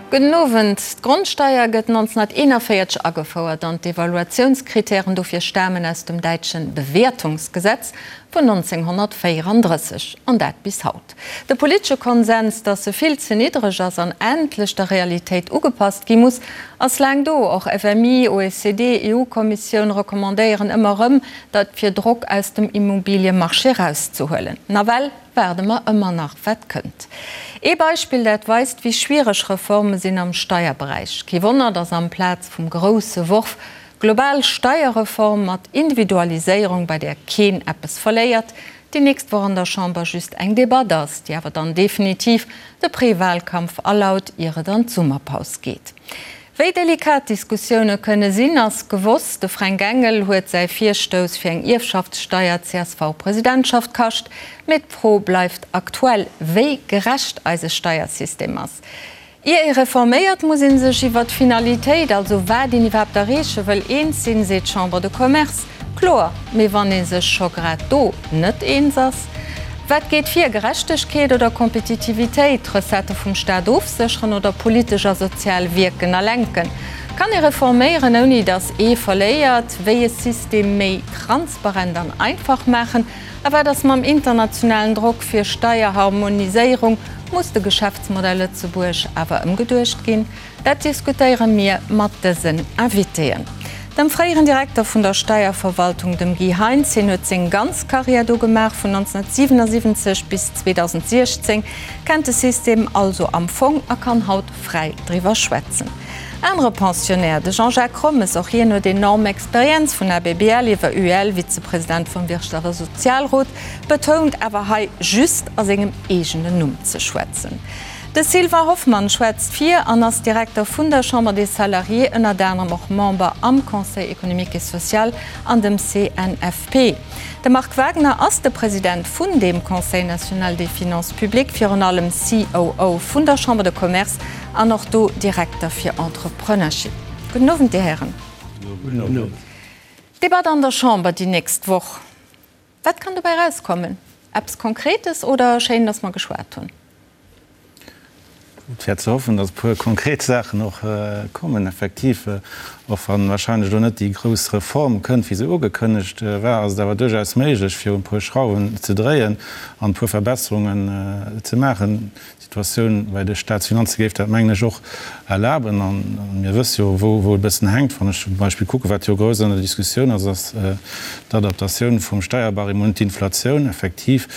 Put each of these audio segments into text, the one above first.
Gudden Owend. D'Grondsteier gëtt 1941 agefouert an d'Evaluatiounskritären dofir stamen aus dem däitsche Bewertungsgesetz vun 1934, an dat bis haut. De politesche Konsens, datt se vill ze niddreg ass an endlech der Realitéit ugepasst gi muss, ass laang do. Och FMI, OECD, EU-Kommissioun recommandéieren ëmmer erëm, dat fir Drock aus dem Immobiliemarché erauszehuelen. Nawell waarde mer ëmmer nach, wat kënnt. Ee Beispill, dat weist, wéi schwiereg Reforme sinn am Steierberäich. Kee Wonner, datt amplaz vum grousse Worf global Steierreform mat Individualiséierung, bei där keen eppes verléiert, déi nächst Woch an der Chamber just eng Debatt ass, déi awer dann definitiv de Prewalkampf alaut, ier et an d'Summerpaus geet. Wéi delikat d'Diskussioune kënne sinn, ass gewosst. De Fränk Engel huet säi Virstouss fir eng Ierfschaftssteier d'CSV-Presidentschaft kascht. Mee d'Fro bleift aktuell, wéi gerecht eise Steiersystem ass. Ier ee reforméiert, muss ee sech iwwer d'Finalitéit, also wat een iwwerhaapt erreeche wëll, eens sinn, seet d'Chambre de Commerce. Kloer, mee wann ee sech scho grad do net eens ass? Wat geet vir, Gerechtegkeet oder Kompetitivitéit, d'Recettë vum Staat ofsécheren oder politesch a sozial wierken a lenken? Kann ee reforméieren, ouni datt ee verléiert? Wéi e System méi transparent an einfach maachen? A wat ass mam internationalen Drock fir Steierharmoniséierung? Muss de Geschäftsmodell Lëtzebuerg awer ëmgeduecht ginn? Dat diskutéiere mir mat dësen Invitéen. Dem fréieren Direkter vun der Steierverwaltung, dem Guy Heintz. Hien huet seng ganz Karriär do gemaach, vun 1977 bis 2016, kennt de System also am Fong a kann haut fräi driwwer schwätzen. Anere Pensionnaire, de Jean-Jacques Rommes, och hien huet enorm Experienz, vun ABBL iwwer UEL, Vizepresident vum Wirtschafts a Sozialrot, betount awer hei just a sengem eegenen Numm ze schwätzen. De Sylvain Hoffmann schwätzt fir an ass Direkter vun der Chambre des Salariés, ënnert anerem och Member am Conseil économique et social an dem CNFP. De Marc Wagner ass de President vun deem Conseil national des finances publiques, virun allem COO vun der Chambre de Commerce an och do Direkter fir Entrepreneurship. Gudden Owend, Dir Hären. Gudden Owend. Debatt an der Chamber déi nächst Woch. Wat kann dobäi erauskommen? Eppes Konkretes oder schéin, datt mer geschwat hunn? Et wär ze hoffen, datt e puer konkret Saachen och kommen. Effektiv, och wa wahrscheinlech elo net déi grouss Reform kënnt, wéi se ugekënnegt war, ass et awer duerchaus méiglech, fir un e puer Schrauwen ze dréien an e puer Verbesserungen ze maachen. D'Situatioun bei de Staatsfinanze géif dat, mengen ech, och erlaben. A mir wësse jo, wou et e bëssen hänkt. Wann ech zum Beispill kucken, wat jo grouss an der Diskussioun ass, ass d'Adaptatioun vum Steierbarème un d'Inflatioun. Effektiv,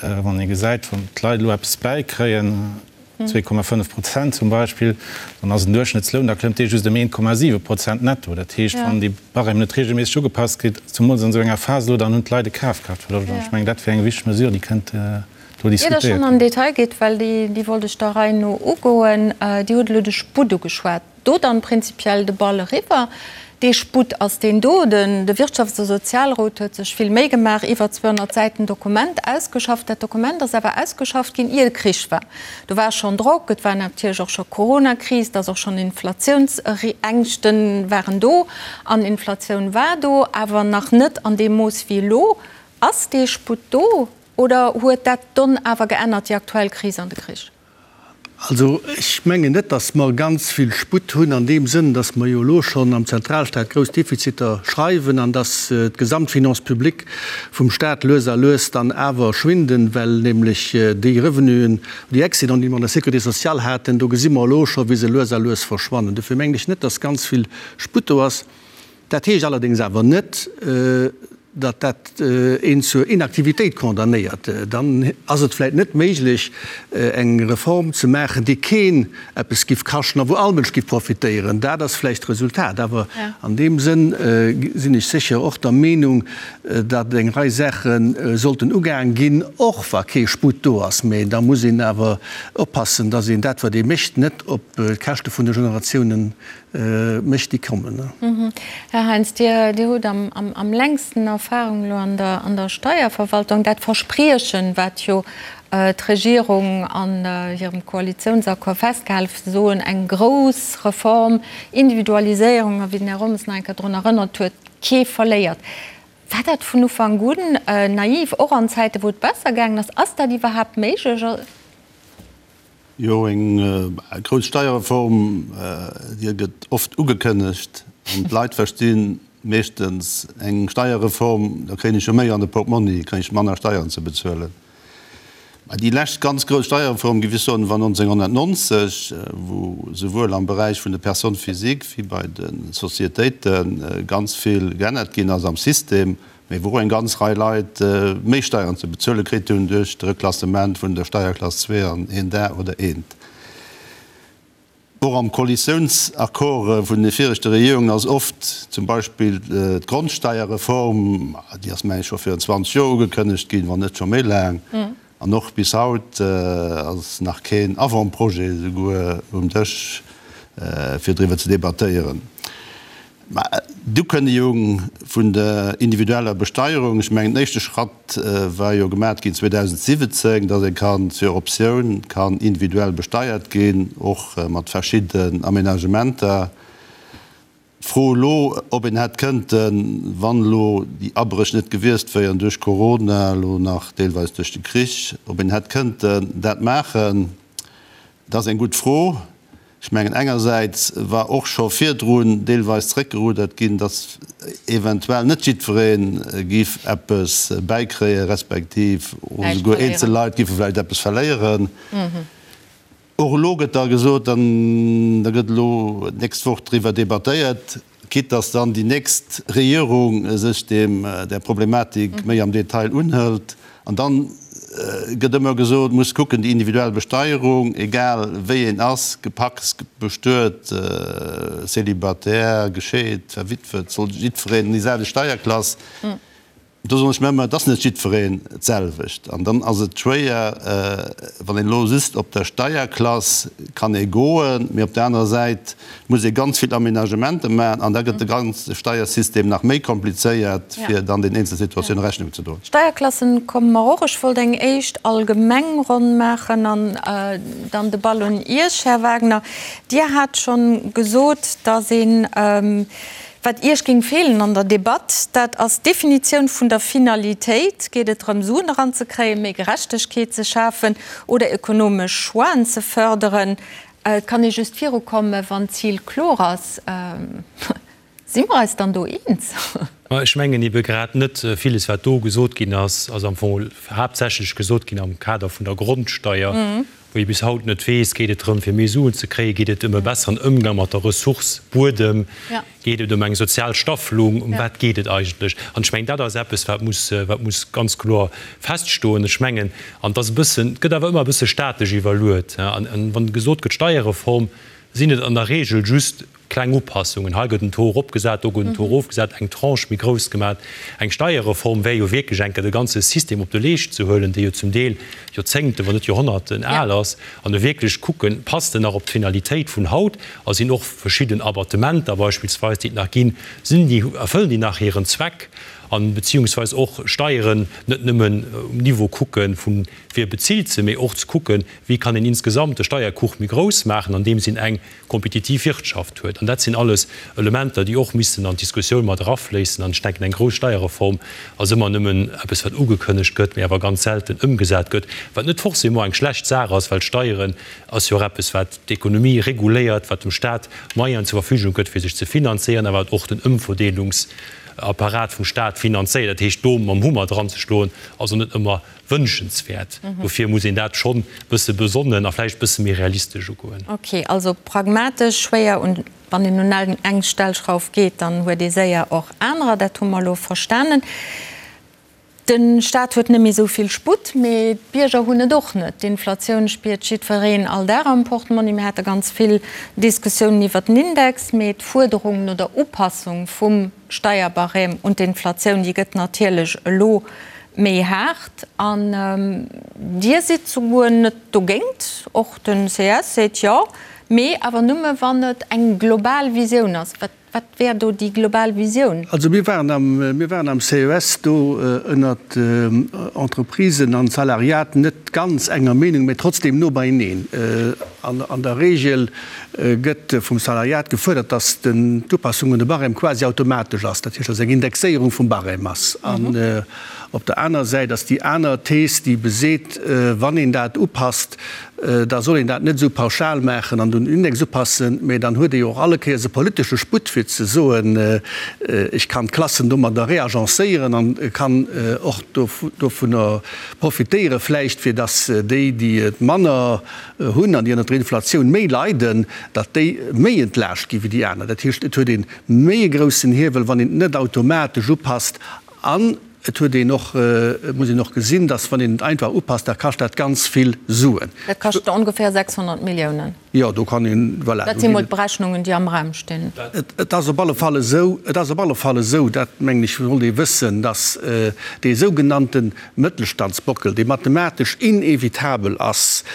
Wann ee gesäit, wann d'Leit elo eppes bäikréien, 2,5 Prozent zum Beispill, dann ass en Duerchschnëttsloun, da klëmmt dee just ëm 1,7 Prozent netto. Dat heescht, wann dee Barème net reegelméisseg ugepasst gëtt, zemools an esou enger Phas elo, dann hunn d'Leit e Kafkraaftverloscht. An ech mengen, dat wär eng wichteg Mesure, déi kënnt do Ier Der diskutéiert schonn ginn. an den Detail gitt, well déi wollt ech der Rei no ugoen, Dir hutt elo de Sputt ugeschwat. Do dann prinzipiell de Ball eriwwer. Dee Sputt ass deen do. De Wirtschafts a Sozialrot huet sech vill Méi gemaach, iwwer 200 Säiten Dokument ausgeschafft. Dat Dokument ass awer ausgeschafft ginn, ier de Krich war. Do war schonn Drock, et war natierlech och scho Coronakris, et ass och schonn Inflatiounsängschten waren do an Inflatioun war do, awer nach net an deem Mooss wéi elo. Ass dee Sputt do oder huet dat d'Donn awer geännert, déi aktuell Kris an de Krich? Also ech mengen net, datt mer ganz vill Sputt hunn an deem Sënn, datt mer jo elo schonn am Zentralstaat grouss Defiziter schreiwen an datt d'Gesamtfinance publique vum Staat lues a lues dann awer schwinden, well nämlech déi Revenuen, déi Excédenten, déi mer an der Sécurité sociale haten, do gesi mer elo scho wéi se lues a lues verschwannen. Dofir mengen ech net, datt ganz vill Sputt do ass. Dat heescht allerdéngs awer net, datt dat een zur Inaktivitéit condamnéiert. Dann ass et vläicht net méiglech, eng Reform ze maachen, déi keen eppes giff kaschten a wou all Mënsch giff profitéieren. Dat ass vläicht d'Resultat. Awer an deem Sënn sinn ech sécher och der Meenung, datt eng Rei Saache sollten ugaang ginn, och wa kee Sputt do ass. Mä da muss een awer oppassen, datt een dat, wat ee mécht, net op d'Käschte vun de Generatiounen mécht déi kommen. Här Heintz, Dir hutt am längsten Erfahrung elo an der Steierverwaltung. Dat Verspriechen, wat jo d'Regierung an hirem Koalitiounsaccord festgehale huet, ze soen, eng grouss Reform, Individualiséierung, a wéi den Här Rommes nach eng Kéier drun erënnert huet, kee verléiert. War dat vun Ufank un naiv, och an Zäiten, wou et besser gaangen ass? Ass dat iwwerhaapt méiglech? Jo, eng grouss Steierreform, déi gëtt oft ugekënnegt an d'Leit versti meeschtens eng Steierreform, da kréien ech jo méi an de Portmonni, kréien ech manner Steieren ze bezuelen. Mä déi lescht ganz grouss Steierreform, géif ech soen, war 1990, wou souwuel am Beräich vun de Personnes physiques wéi bei de Sociétéite ganz vill geännert ginn ass am System. Mee wou och eng ganz Rei Leit méi Steieren ze bezuele kritt hunn duerch de Reklassement vun der Steierklass 2 an een Dag oder eent. Och am Koalitiounsaccord vun de viregte Regierungen ass oft zum Beispill d'Grondsteierreform, déi ass meng ech scho virun 20 Joer ugekënnegt ginn, wann net scho méi laang, an och bis haut ass nach keen Avant-projet esouguer um Dësch fir driwwer ze debattéieren. Mä d'Ukënnegung vun der individueller Besteierung, ech mengen den éischte Schratt war jo gemat ginn 2017, datt ee kann sur Optioun kann individuell besteiert ginn, och mat verschidden Aménagementer. D'Fro elo, ob een hätt kënnten, wann elo déi Abréch net gewiescht wéieren duerch Corona, elo nach deelweis duerch de Krich, ob een hätt kënnten dat maachen, dat ass eng gutt Fro. Ech mengen, engersäits war och scho virdrun deelweis zréckgerudert ginn, datt eventuell net jiddweree géif eppes bäikréien, respektiv och esouguer eenzel Leit géife vläicht eppes verléieren. Och elo gëtt da gesot, an da gëtt elo d'nächst Woch driwwer debattéiert, quitte datt dann déi nächst Regierung sech deem, där Problematik méi am Detail unhëlt. An dann gëtt ëmmer gesot, muss kucken, déi individuell Besteierung, egal wéi een ass, gepacst, bestuet, célibataire, gescheet, verwitwet, soll jiddwereen an déi selwecht Steierklass. Do soen ech mir ëmmer, et ass net jiddwereen d'selwecht. An dann ass et schwéier, wann een elo just op der Steierklass kann ee goen, mee op der anerer Säit muss ee ganz vill Aménagementer maachen an da gëtt de ganze Steiersystem nach méi komplizéiert, fir dann den eenzel Situatioune Rechnung ze droen. Steierklassen komme mer och. Ech wollt eng éischt allgemeng Ronn maachen an dann de Ball un Iech, Här Wagner. Dir hat schonn gesot, datt een, Wat Iech géing feelen an der Debatt, dat ass d'Definitioun vun der Finalitéit. Geet et drëm, Suen eranzekréien, méi Gerechtegkeet ze schafen oder ökonomesch Choixen ze fërderen? Et kann ee just virukommen, wann d'Zil kloer ass. Si mer eis dann do eens? Ma ech mengen ebe grad net. Villes, wat do gesot ginn ass, ass am Fong haaptsächlech gesot ginn am Kader vun der Grondsteier. Wou ee bis haut net weess, geet et drëm fir méi Suen ze kréien, geet et ëm e besseren Ëmgang mat der Ressource Buedem, geet et ëm eng sozial Staffelung, ëm wat geet et eigentlech? An ech mengen, dat ass eppes, wat muss, wat muss ganz kloer feststoen. Ech mengen, an et ass e bëssen, et gëtt awer ëmmer e bësse statesch iwwerluet, an wann gesot gëtt Steierreform, sinn et an der Regel just Kleng Upassungen, hei gëtt en Taux eropgesat, do gëtt en Taux erofgesat, eng Tranche méi grouss gemat. Eng Steierreform wär jo wierklech eng Kéier de ganze System op de Leescht ze huelen, dee jo zum Deel Joerzéngten, wann net Joerhonnerten al ass, an e wierklech kucken, passt en nach op d'Finalitéit vun haut a sinn och verschidden Abattementer beispillsweis, déi et nach ginn, sinn déi, erfëllen déi nach hiren Zweck? An beziehungsweis och Steieren net nëmmen um Niveau kucke vun wie bezilt se, mee och ze kucken, wéi kann een insgesamt de Steierkuch méi grouss maachen, andeems een eng kompetitiv Wirtschaft huet. An dat sinn alles Elementer, déi och missten an d'Diskussioun mat erafléissen. An ech denken, eng grouss Steierreform ass ëmmer nëmmen eppes, wat ugekënnegt gëtt, mee awer ganz selten ëmgesat gëtt, wat net forcément eng schlecht Saach ass, well Steieren ass jo och eppes, wat d'Ekonomie reguléiert, wat dem Stat Moyenen zur Verfügung gëtt, fir sech ze finanzéieren, a wat och den Ëmverdeelungsapparat vum Stat finanzéiert. Dat heescht, do mam Hummer dranzeschloen, ass och net ëmmer wënschenswäert. Dofir muss een dat schonn e bësse besonnen a vläicht e bësse méi realistesch ugoen. Ok, also pragmatesch, schwéier un, wann een un eng Stellschrauf geet, dann huet ee séier och anerer, dat hu mer elo verstanen. De Staat huet net méi esou vill Sputt, mee d'Bierger hunn et och net. D'Inflatioun spiert jiddwereen all Dag am Portmonni. Mir hate ganz vill Diskussiounen iwwert den Index, mee d'Fuerderung no der Upassung vum Steierbarème un d'Inflatioun, déi gëtt natierlech elo méi haart. An Dir sidd souguer net dogéint, och den ces seet jo, mee awer nëmme wann et eng global Visioun ass. Wat, wat wär do déi global Visioun? Also mir waren am, mir waren am CES do ënnert Entreprisen an Salariat net ganz enger Meenung, mä trotzdem no beieneen. An der Regel gëtt vum Salariat gefuerdert, dass d'Upassung un de Barème quasi automatesch ass, dat heescht, dass eng Indexéierung vum Barème ass. An op der aner Säit ass déi aner Thees, déi beseet, wann een dat upasst, da soll een dat net esou pauschal maachen an un den Index upassen, mä dann huet ee jo och alle Kéiers e politesche Sputt fir ze soen, ech kann d'Klassen domadder reagencéieren an kann och dovunner profitéiere vläicht, fir dass déi, déi et manner hunn an déi ënnert der Inflatioun méi leiden, datt déi méi entlaascht gi wéi déi aner. Dat heescht, et huet ee méi e groussen Hiewel, wann een et net automatesch upasst. An et huet een och, et muss een och gesinn, datt wann een et einfach upasst, da kascht dat ganz vill Suen. Dat kascht ongeféier 600 Milliounen. Jo, do kann een, voilà. Dat si mol d'Berechnungen, déi am Raum stinn. Et ass op alle Fall esou, et ass op alle Fall esou, dat mengen ech sollt ee wëssen, datt dee sougenannte Mëttelstandsbockel, dee mathematesch inevitabel ass,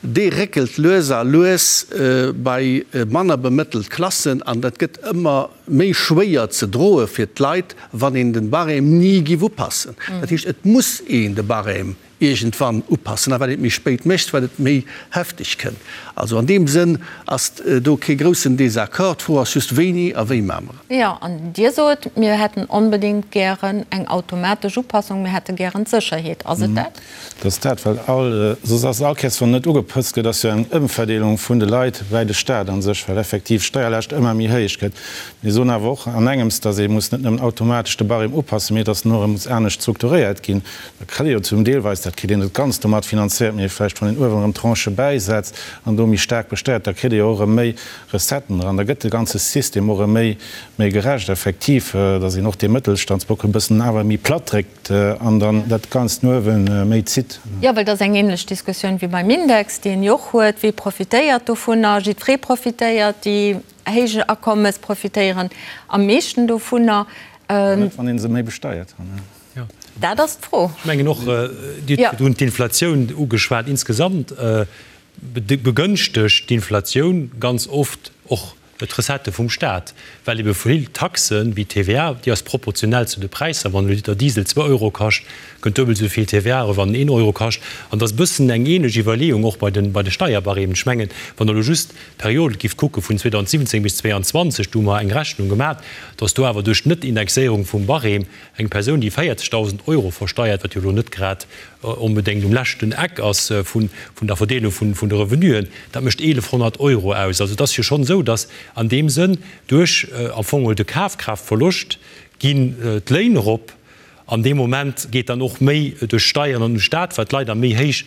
dee réckelt lues a lues bei manner bemëttelt Klassen an dat gëtt ëmmer méi schwéier ze droe fir d'Leit, wann een den Barème ni giff upassen. Dat heescht, et muss een de Barème iergendwann upassen, a wat een et méi spéit mécht, wat et méi hefteg kënnt. Also an deem Sënn ass do kee groussen Désaccord. D'Fro ass just, wéini a wéi maache mer et. Jo, an Dir sot, mir hätten onbedéngt gären eng automatesch Upassung, mir hätte gären d'Sécherheet. Ass et dat? Dat ass dat, well all, soss ass all Kéiers, wann net ugepëtzt gëtt, ass jo eng Ëmverdeelung vun de Leit bäi de Staat a sech, well effektiv d'Steierlaascht ëmmer méi héich gëtt. Mir soen awer och an engems, datt ee muss net nëmmen automatesch de Barème upassen, mee datt en och erëm muss anescht strukturéiert ginn. Da kritt ee jo zum deelweis, dat kritt een net ganz domat finanzéiert, mee vläicht wann een uewen erëm Tranchë bäisetzt an do méi staark besteiert, da kritt ee jo och erëm méi Recetten eran. Da gëtt de ganze System och erëm méi, méi gerecht effektiv, datt een och dee Mëttelstandsbockel e bëssen awer méi platt dréckt. An dann dat Ganzt no uewe méi zitt. Jo, well dat ass eng ähnlech Diskussioun wéi beim Index, déi een jo och huet. Wie profitéiert dovunner? Jiddweree profitéiert. Déi héich Akommes profitéieren am meeschten dovunner. Net, wann ee se méi besteiert. Dat ass d'Fro. Ech mengen och, Dir hutt virdrun d'Inflatioun ugeschwat. Insgesamt begënschtegt d'Inflatioun ganz oft och D'Recettë vum Staat, well ebe vill Taxen, wéi d'TVA, déi ass proportionell zu de Präisser, wann e Liter Diesel zwou Euro kascht, kënnt duebel esou vill TVA erëm, wann en een Euro kascht. An et ass e bëssen eng ähnlech Iwwerleeung och bei de bei de Steierbarèmen. Ech mengen, wann Der elo just d'Period gift kucke vun 2017 bis 2022, do hu mer eng Rechnung gemat, datt do awer duerch d'Net-Indexéierung vum Barème eng Persoun, déi 40.000 Euro versteiert, wat jo elo net grad onbedéngt um leschten Eck ass vun der Verdeelung vun de Revenuen, dat mécht 1.100 Euro aus. Also et ass jo schonn esou, datt an deem Sënn duerch am Fong geholl de Kafkraaftverloscht ginn d'Léin erop an dee Moment geet dann och méi duerch d'Steieren an un de Staat, well d'Leit a méi héich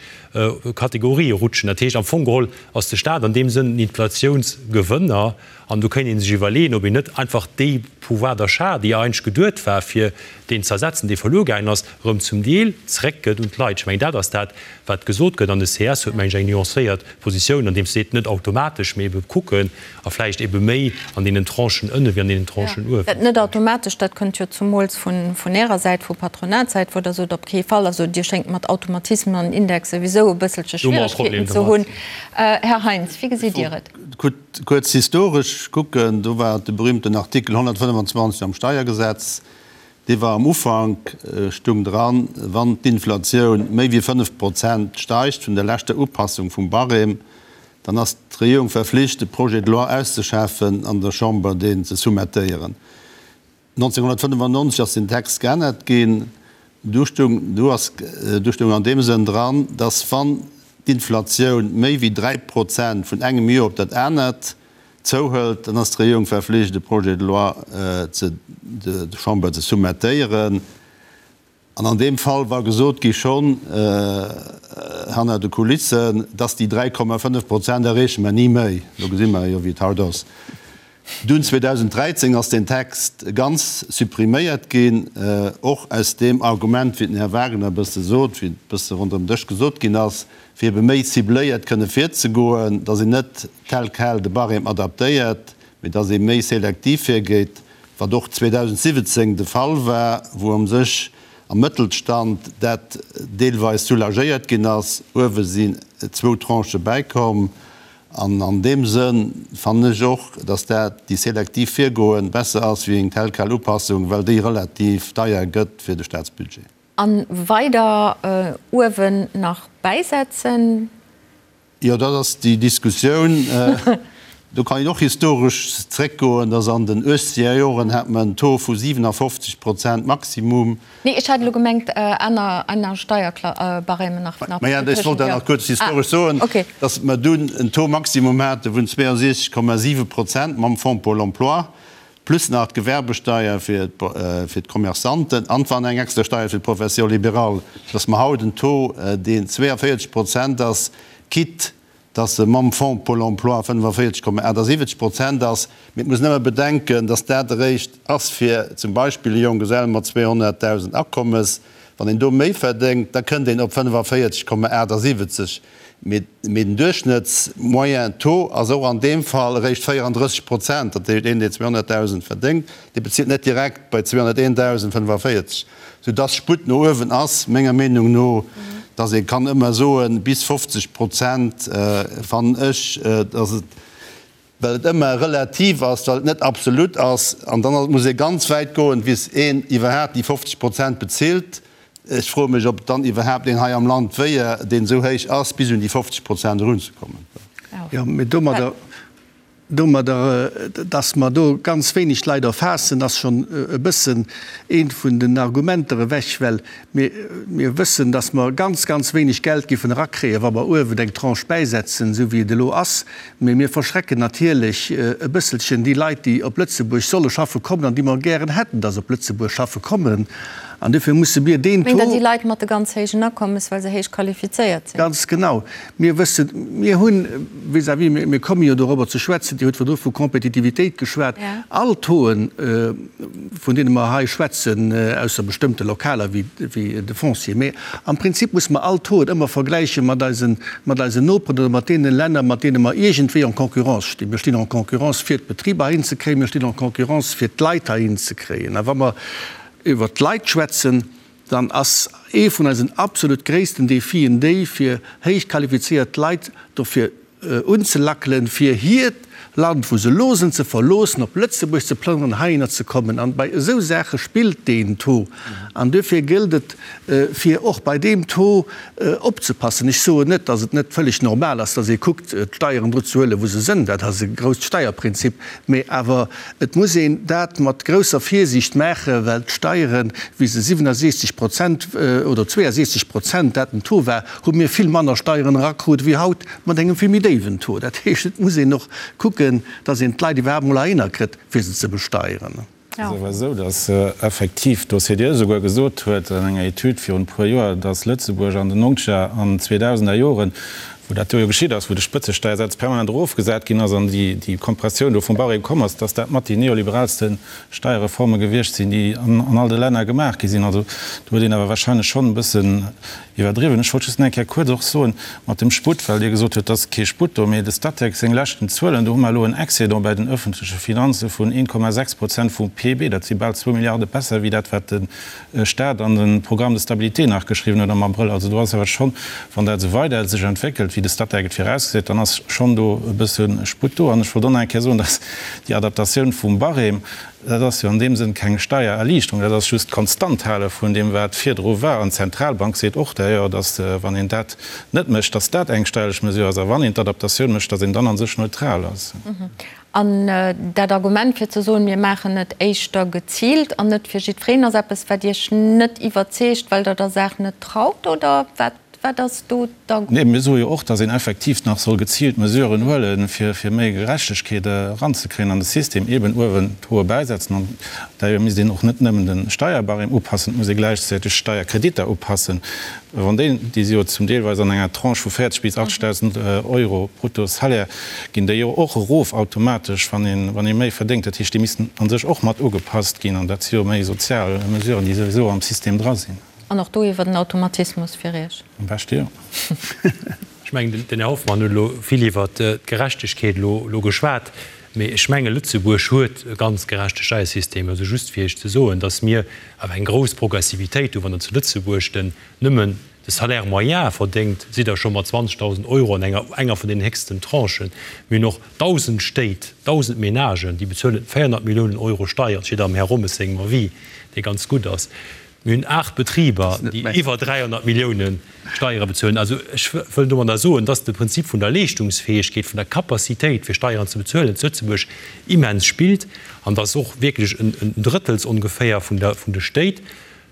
Kategorië rutschen. Dat heescht am Fong geholl ass de Staat an deem Sënn en Inflatiounsgewënner. An do kéint ee sech iwwerleeën, ob een net einfach dee Pouvoir d'achat, déi eigentlech geduet war, fir deen ze ersetzen, dee verluer gaangen ass, erëm zum Deel zeréckgëtt un d'Leit. Ech mengen, dat ass dat, wat gesot gëtt. An de ces huet, mengen ech, eng nuancéiert Positioun, andeems seet, net automatesch, mee ebe kucken a vläicht ebe méi an deenen Tranchen ënne wéi an deenen Tranchen uewen. Dat net automatesch, dat kënnt jo zumools vun Ärer Säit, vu Patronatssäit, wou Der sot, op kee Fall. Also Dir schéngt mat Automatismen an Indexe souwisou e bësselche Schwieregkeeten ze hunn. Här Heintz, wéi gesitt Dir et? Kuerz historesch kucken, do war de berühmten Artikel 125 am Steiergesetz, dee war am Ufank, stung dran, wann d'Inflatioun méi wéi 5 Prozent steigt vun der leschter Upassung vum Barème, dann ass d'Regierung verflicht, e Projet de loi auszeschaffen an der Chamber deen ze soumettéieren. 1995 ass den Text geännert ginn. Du stung, du ass, du stung an deem Sënn dran, dass wann d'Inflatioun méi wéi 3 Prozent vun engem Joer op dat anert zouhëlt, dann ass d'Regierung verflicht e Projet de loi ze der Chamber ze soumettéieren. An an deem Fall war gesot gi schonn hanner de Kulissen, dass déi 3,5 Prozent erreeche mer ni méi. Lo gesi mer jo, wéi et haut ass. Dunn 2013 ass deen Text ganz suppriméiert ginn, och aus deem Argument, wéi den Här Wagner e bësse sot, wéi et e bësse ronderëm Dësch gesot ginn ass, fir ebe méi cibléiert kënne virzegoen, dass een net tel quel de Barème adaptéiert, mee dass ee méi selektiv virgeet. Wat och 2017 de Fall war, wou am sech am Mëttelstand dat deelweis soulagéiert ginn ass. Uewe sinn zwou Tranchë bäikomm. An an deem Sënn fannen ech och, dass dat, déi selektiv Virgoen, besser ass wéi eng tel quel Upassung, well déi relativ deier gëtt fir de Statsbudget. A weider uewen nach bäisetzen. Jo, dat ass déi Diskussioun. Do kann een och historesch zréckgoen, dass an den uechzeger Joren hat mer en Taux vu 57 Prozent Maximum. Nee, ech hat elo gemengt aner, aner Steierbarèmen nach, nach. Maja, ech wollt dat nach kuerz historesch soen, dass mer dunn en Taux maximum hate vun 62,7 Prozent mam Fonds pour l'emploi, plus nach d'Gewerbesteier fir d'Commerçanten an wann eng extra Steier fir d'Profession libérale, dass mer haut en Taux, deen 42 Prozent ass, quitte dass e mam Fonds pour l'emploi 45,78 Prozent ass. Mee et muss een ëmmer bedenken, dass dat eréischt ass fir zum Beispill e Jonggesell mat 200.000 Akommes. Wann een do méi verdéngt, da kënnt een op 45,78. Mee den Duerchschnëtts-moyen Taux ass och an deem Fall eréischt 34 Prozent. Dat heescht, een, deen 200.000 verdéngt, dee bezilt net direkt bei 201.000 45, soudass Sputt no uewen ass, menger Meenung no, dass ee kann ëmmer soen, bis 50 Prozent fannen ech, dass et, well et ëmmer relativ ass, well et net absolut ass, an dann muss ee ganz wäit goen, bis een iwwerhaapt déi 50 Prozent bezilt. Ech froe mech, ob dann iwwerhaapt een hei am Land wéier, deen esou héich ass, bis un déi 50 Prozent erunzekommen. Jo, mee domadder, domadder, dass mer do ganz wéineg Leit erfaassen, ass schonn e bëssen eent vun den Argumenter ewech, well mir, mir wëssen, dass mer ganz, ganz wéineg Geld géifen erakréien, wa mer uewen eng Tranche bäisetzen, esou wéi et elo ass. Mee mir verschrecken natierlech e bësselchen déi Leit, déi op Lëtzebuerg solle schaffe kommen an déi mer gären hätten, dass op Lëtzebuerg schaffe kommen. An duerfir musse mir deen Taux. Mengt Der déi Leit mat de ganz héijen Akommes, well se héich qualifizéiert sinn? Ganz genau. Mir wëssen, mir hunn vis-à-vis, mir komme jo dorobber ze schwätzen, Dir hutt virdru vu Kompetitivitéit geschwat, all Tauxen, vun deene mer hei schwätzen, ausser bestëmmte lokaler wéi de Foncier, mee am Prinzip musse mer all Tauxen ëmmer vergläiche mat eisen, mat eisen Noperen oder mat deene Länner, mat deene mer iergendwéi en concurrence stinn. Mir stinn en concurrence fir d'Betriber heihin ze kréien, mir stinn en concurrence fir d'Leit heihin ze kréien. A wa mer iwwert d'Leit schwätzen, dann ass ee vun eisen absolut gréissten Defien déi, fir héich qualifizéiert Leit dofir unzelackelen, fir hiert Land, wou se elo sinn, ze verloossen, op Lëtzebuerg ze plënneren, heihinner ze kommen. An bei esou Saache spillt deen Taux. An duerfir gëllt et, fir och bei deem Taux opzepassen. Ech soen net, datt et net vëlleg normal ass, datt ee kuckt, d'Steieren do ze huelen, wou se sënn. Dat ass e grousst Steierprinzip. Mee awer et muss een dat mat grousser Virsiicht maachen, well d'Steieren, wéi se 67 Prozent oder 62 Prozent dat den Taux war, hu mir vill manner Steieren erakrut wéi haut mat engem vill méi déiwen Taux. Dat heescht, et muss een och kucken, datt een d'Leit iwwerhaapt emol heihinner kritt, fir se ze besteieren. Et ass awer esou, datt effektiv d'OCDE esouguer gesot huet an enger Etüd virun e puer Joer, datt Lëtzebuerg an den nonzeger an zweedausender Joren, wou dat do jo geschitt ass, wou de Spëtzesteiersaz permanent erofgesat ginn ass an déi Kompressioun do vum Barème komm ass, datt dat mat déi neoliberaalste Steierreforme gewiescht sinn, déi an all de Länner gemaach gi sinn. Also do huet een awer wahrscheinlech schonn e bëssen Iwwerdriwwen. Ech wollt just nach eng Kéier kuerz och soen, mat dem Sputt, well Dir gesot hutt, et ass kee Sputt do, mee de Statec seng leschten Zuelen, do hu mer elo en Excédent bei den öffentleche Finanze vun 1,6 Prozent vum PIB. Dat si bal zwou Milliarde besser wéi dat, wat de Stat an de Programme de stabilité nach geschriwwen huet am Abrëll. Also do ass awer schonn, wann dat esou weider sech entwéckelt, wéi de Statec et virausgesäit, dann ass schonn do e bësse Sputt do. An ech wollt och nach eng Kéier soen, dass déi Adaptatioun vum Barème, Dat ass jo an deem Sënn keng Steiererliichterung, dat ass just d'Konstanthale vun deem, wat virdru war. An d'Zentralbank seet och d'ailleurs, datt, wann een dat net mécht, datt dat eng steierlech Mesure ass, a wann een d'Adaptatioun mécht, datt een dann a sech neutral ass. An dat Argument, fir ze soen, mir maachen et éischter geziilt an net fir jiddwereen, ass eppes, wat Iech net iwwerzeegt, well Der der Saach net traut, oder wat? Wat ass do d'Argument? Nee, mir soe jo och, datt een effektiv nach soll geziilt Mesuren huelen, fir fir méi Gerechtegkeet eranzekréien an de System, eeben uewen d'Hoe bäisetzen. An d'ailleurs misst een och net nëmmen de Steierbarème upassen, et muss ee gläichzäiteg d'Steierkreditter upassen. Wann déi, déi si jo zum deelweis an enger Tranche vu 40 bis 80.000 Euro brutto Salaire, ginn déi jo och erof automatesch, wann een, wann ee méi verdéngt. Dat heescht, déi missten a sech och mat ugepasst ginn. An dat si jo méi sozial Mesuren, déi souwisou am System dra sinn. An och do iwwer den Automatismus fir Iech? Am beschte jo. Ech mengen, den Här Hoffmann huet elo vill iwwert d'Gerechtegkeet elo geschwat, mee ech menge Lëtzebuerg huet e ganz gerechte Steiersystem. Also just fir Iech ze soen, datt mir awer eng grouss Progressivitéit hunn. Wann Der zu Lëtzebuerg den nëmmen de Salaire moyen verdéngt, sidd Der scho mat 20.000 Euro an enger enger vun den héchsten Tranchen. Mir hunn och 1.000 Stéit, 1.000 Menagen, déi bezuelen 400 Milliounen Euro Steier. Dat steet am Här Rommes sengem Avis, dee ganz gutt ass. Mir hunn 8 Betriber, déi iwwer 300 Milliounen Steiere bezuelen. Also ech wëll domadder soen, dass de Prinzip vun der Leeschtungsfäegkeet, vun der Capacitéit fir Steieren ze bezuelen zu Lëtzebuerg immens spillt an dass och wierklech en Drëttels ongeféier vun de Stéit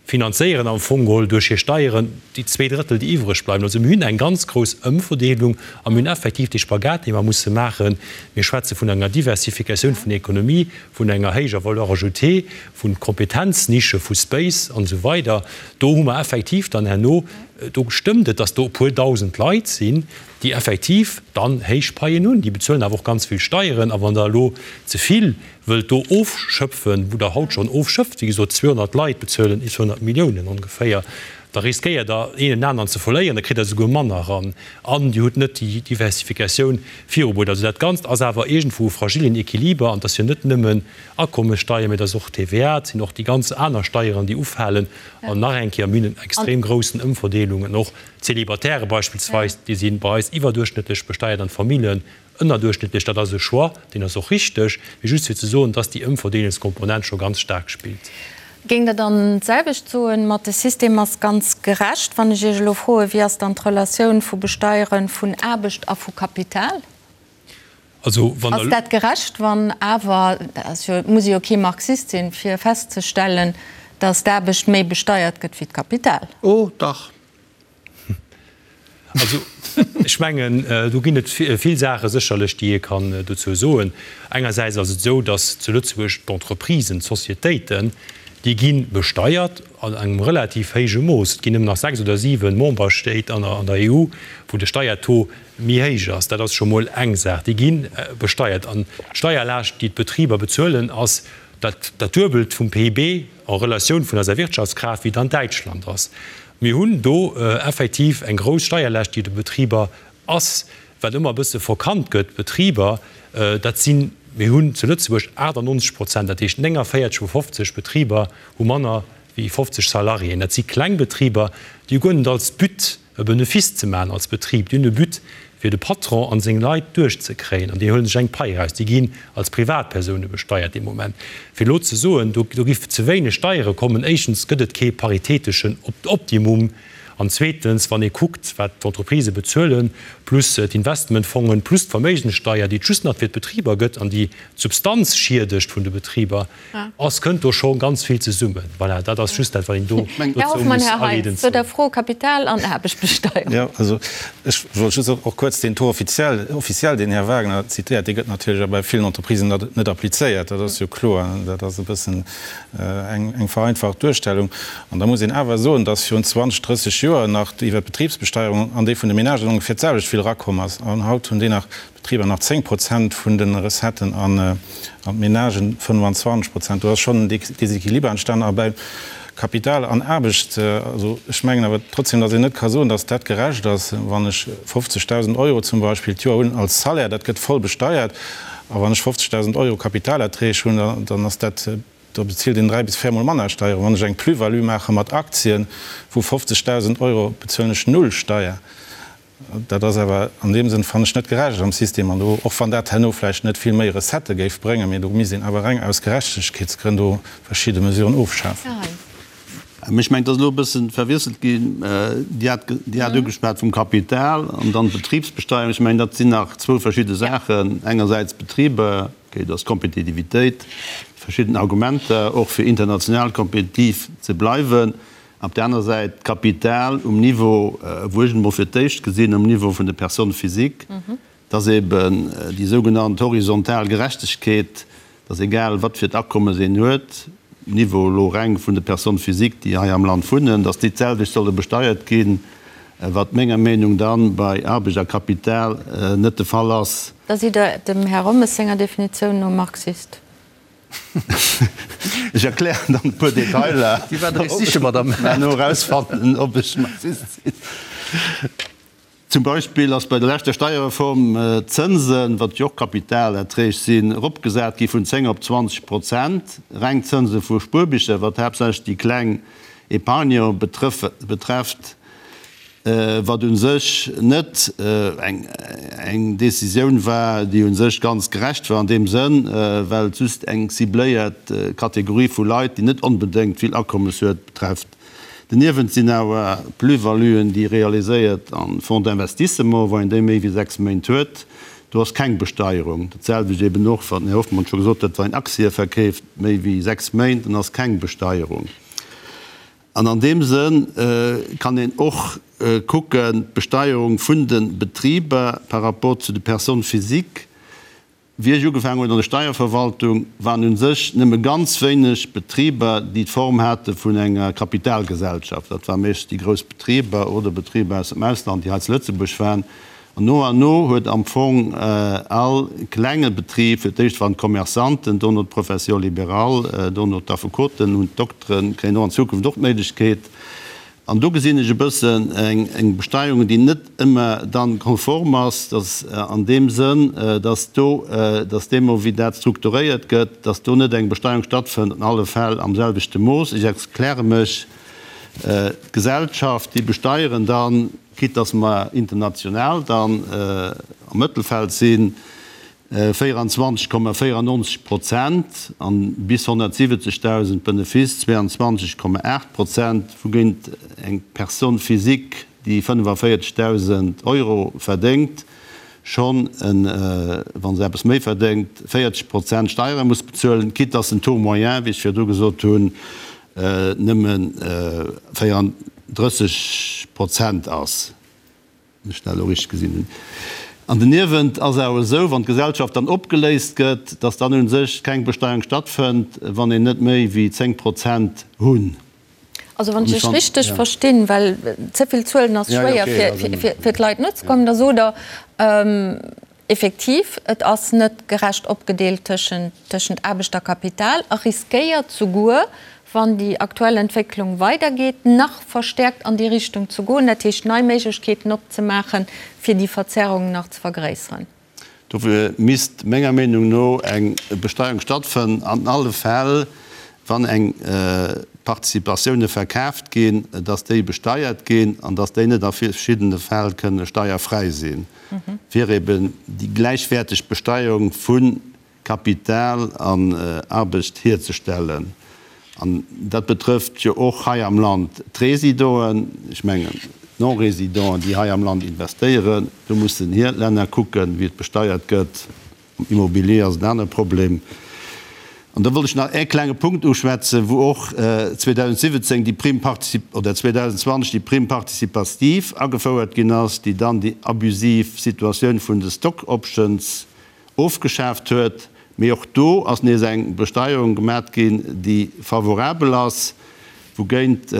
finanzéieren am Fong geholl duerch hir Steieren déi zwee Drëttel, déi iwwreg bleiwen. Also mir hunn eng ganz grouss Ëmverdeelung a mir hunn effektiv dee Spagat, dee mer musse maachen. Mir schwätze vun enger Diversifikatioun vun der Ekonomie, vun enger héijer Valeur ajoutée, vu Kompetenznische, vu Space an esou weider. Do hu mer effektiv dann herno, do stëmmt et, datt do e puer dausend Leit sinn, déi effektiv dann héich Paien hunn. Déi bezuelen awer och ganz vill Steieren. A wann Der elo ze vill wëllt do ofschöpfen, wou Der haut schonn ofschöpft, wéi gesot 200 Leit bezuelen 200 Milliounen ongeféier, da riskéiert Der een en aneren ze verléieren, da kritt Der esouguer manner eran an Dir hutt net déi Diversifikatioun virubruet. Also dat Ganzt ass awer iergendwou e fragillen Equiliber an et ass jo net nëmmen Akommessteier, mee et ass och TVA, et sinn och déi ganz aner Steieren, déi ufalen an nach eng Kéier, mir hunn en extrem groussen Ëmverdeelungen, och d'Célibataire beispillsweis, déi si bei eis iwwerduerchschnëttlech besteiert an d'Famillen Ënnerduerchschnëttlech, dat ass e Choix, deen ass och richteg, mee just fir ze soen, dass déi Ëmverdeelungskomponent scho ganz staark spillt. Géingt Der dann d'selwecht soen, mat de System ass ganz gerecht, wann ech Iech elo froen, wéi ass dann d'Relatioun vu Besteiere vun Aarbecht a vu Kapital? Also, wann Ass dat gerecht, wann awer, dat ass jo, et muss ee jo kee Marxist sinn, fir festzestellen, dass d'Aarbecht méi besteiert gëtt wéi d'Kapital? Oh dach! Also, ech mengen, do ginn et vill Saache sécherlech, déi ee kann dozou soen. Engersäits ass et esou, datt zu Lëtzebuerg d'Entreprisen, d'Sociétéiten, déi gi besteiert an engem relativ héije Mooss. Et ginn nëmmen nach sechs oder siwe Memberstéit an der EU, wou de Steiertaux méi héich ass. Dat ass scho mol eng Saach. Déi gi besteiert. An d'Steierlaascht, déi d'Betriber bezuelen, ass dat Duebelt vum PIB en Relatioun vun eiser Wirtschaftskraaft, wéi et an Däitschland ass. Mir hunn do effektiv eng grouss Steierlaascht, déi de Betriber ass, wat ëmmer e bësse verkannt gëtt. D'Betriber, dat sinn, mir hunn zu Lëtzebuerg 98 Prozent, dat heescht 49 vu 50 Betriber hu manner wéi 50 Salariéen. Dat si kleng Betriber, déi hu guer net als But, e Benefice ze maachen als Betrib. Déi hunn e But, fir de Patron an seng Leit duerchzekréien, an déi huele sech eng Pai eraus. Déi ginn als Privatpersoune besteiert dee Moment. Fir elo ze soen, do giff ze wéineg Steiere kommen, éischtens gëtt et kee paritäteschen Optimum, an zweetens, wann ee kuckt, wat d'Entreprisë bezuelen, plus d'Investmentfongen, plus d'Verméigenssteier, déi et just nach fir d'Betriber gëtt an déi d'Substanz schiedegt vun de Betriber, Ass, kënnt do scho ganz vill zesummen. Voilà, dat ass just dat, wat een do Här dozou Hoffmann, muss Här Heintz, aleedend zu der soen. Fro Kapital an Aarbechtbesteierung. Jo, also ech wollt just och kuerz deen Taux officiel, officiel, deen Här Wagner zitéiert, dee gëtt natierlech a bei villen Entreprisen net, net applizéiert. Dat ass jo kloer. Dat ass e bëssen eng, eng vereinfacht Duerstellung. An da muss een awer soen, dass virun 20, 30 Joer nach iwwer d'Betribsbesteierung an déi vun de Menagen ongeféier d'selwecht vill erakomm ass. An haut hunn déi nach D'Betriber nach 10 Prozent vun de Recetten an d'Menagen 25 Prozent. Do ass schonn en Desequiliber entstanen. A bei Kapital an Aarbecht, also ech mengen awer trotzdem, datt een net ka soen, datt dat gerecht ass, wann ech 50.000 Euro zum Beispill d'Joer hunn als Salaire, dat gëtt voll besteiert, a wann ech 50.000 Euro Kapitalerträg hunn, dann ass dat, da bezilt een dräi bis véiermol manner Steieren. Wann ech eng Plus-value maache mat Aktien vu 50.000 Euro, bezuelen ech null Steier. Dat ass awer an deem Sënn, fannen ech, net gerecht am System. An do, och wann dat herno vläicht net vill méi Recettë géif bréngen, mee do misst een awer reng aus Gerechtegkeetsgrënn do verschidde Mesuren ofschafen. Ech mengen, et ass elo e bësse verwiesselt ginn. Dir hat, Dir hat ugeschwat vum Kapital an dann d'Betribsbesteuerung. Ech mengen, dat sinn nach zwou verschidde Saachen. Engersäits d'Betriber, okay, do ass d'Kompetitivitéit, verschidden Argumenter, och fir international kompetitiv ze bleiwen. Op där aner Säit d'Kapital um Niveau, wou ech et emol fir d'éischt gesinn, um Niveau vun de Personnes physiques, dass eben déi sougenannt horizontal Gerechtegkeet, dass egal wat fir d'Akommes een huet, um Niveau elo reng vun de Personnes physiques, déi hei am Land wunnen, dass déi d'selwecht solle besteiert ginn, wat menger Meenung dann bei Aarbecht a Kapital net de Fall ass. Da sidd Der dem Här Rommes senger Definitioun no Marxist. Ech erklären dann e puer Detailer, Déi war dréch siche, Madame. Mä no erausfannen, ob ech Marxist sinn. Zum Beispill ass bei der leschter Steierreform d'Zënsen, wat jo och Kapitalerträg sinn, eropgesat gi vun 10 op 20 Prozent. Reng Zënse vu Spuerbicher, wat haaptsächlech déi kleng Épargnant betrefft. Wat u sech net eng Décisioun war, déi u sech ganz gerecht war an deem Sënn, well et just eng cibléiert Kategorie vu Leit, déi net onbedéngt vill Akommes huet, betrefft. Doniewent sinn awer Plus-valuen, déi realiséiert an Fonds d'investissement, wa een déi méi wéi 6 Méint huet, do ass keng Besteierung. Dat selwecht eben och, wat den Här Hoffmann scho gesot huet, wa een Aktië verkeeft méi wéi 6 Méint, dann ass keng Besteierung. An an deem Sënn kann een och kucken, d'Besteierung vun de Betriber par rapport zu de Personnes physiques. Wéi ech ugefaangen hunn an der Steierverwaltung, waren u sech nëmme ganz wéineg Betriber, déi d'Form hate vun enger Kapitalgesellschaft. Dat ware meeschtens déi grouss Betriber oder Betriber aus dem Ausland, déi hei zu Lëtzebuerg waren. An no an no huet am Fong all klenge Betrib, fir d'éischt waren d'Commerçanten, dono d'Profession libérale, dono d'Affekoten, hunn d'Dokteren, kréien och an Zukunft och d'Méiglechkeet. An do gesinn ech e bëssen eng Besteierung, déi net ëmmer dann konform ass, dass an deem Sënn, dass do, dass deemno wéi dat strukturéiert gëtt, dass do net eng Besteierung stattfënnt an alle Fäll am selwechte Mooss. Ech erkläre mech, D'Gesellschaft, déi besteieren dann, quitte dass mer international dann am Mëttelfeld sinn, 24,94 Prozent an bis 170.000 Benefice 22,8 Prozent, wougéint eng Personne physique, déi 45.000 Euro verdéngt, schonn, wa se eppes méi verdéngt, 40 Prozent Steiere muss bezuelen, quitte dass den Taux moyen, wéi ech virdu gesot hunn, nëmme 34 Prozent ass, wann ech dat elo richteg gesinn hunn. An doniewent ass awer esou, wann d'Gesellschaft dann opgeléist gëtt, dass dann u sech keng Besteierung stattfënnt, wann een net méi wéi 10 Prozent hunn. Also wann ech Iech richteg verstinn, well ze vill Zuelen ass schwéier fir d'Leit nozekommen, da sot Der, Effektiv, et ass net gerecht opgedeelt tëschent Aarbecht a Kapital a riskéiert souguer, wann déi aktuell Entwécklung weidergeet, nach verstäerkt an déi Richtung ze goen, dat heescht nei Méiglechkeeten opzemaachen, fir déi Verzerrungen nach ze vergréisseren. Dofir misst menger Meenung no eng Besteierung stattfënnen an alle Fäll, wann eng Participatioune verkaaft ginn, dass déi besteiert ginn an dass déi net a verschiddene Fäll kënne steierfräi sinn. fir eben déi gläichwäerteg Besteierung vu Kapital an Aarbecht hierzestellen. An dat betrëfft jo och hei am Land d'Résidoen, ech mengen d'Non-Résidenten, déi hei am Land investéieren. Do mussen hir Länner kucken, wéi et besteiert gëtt. Am Immobilier ass en anere Problem. An da wollt ech nach ee klenge Punkt uschwätzen, wou och 2017 déi Prime particip-, oder 2020 déi Prime participative agefouert ginn ass, déi dann déi abusiv Situatioun vun de Stock options ofgeschaaft huet. Mee och do ass nees eng Besteierung gemat ginn, déi favorabel ass, wougéint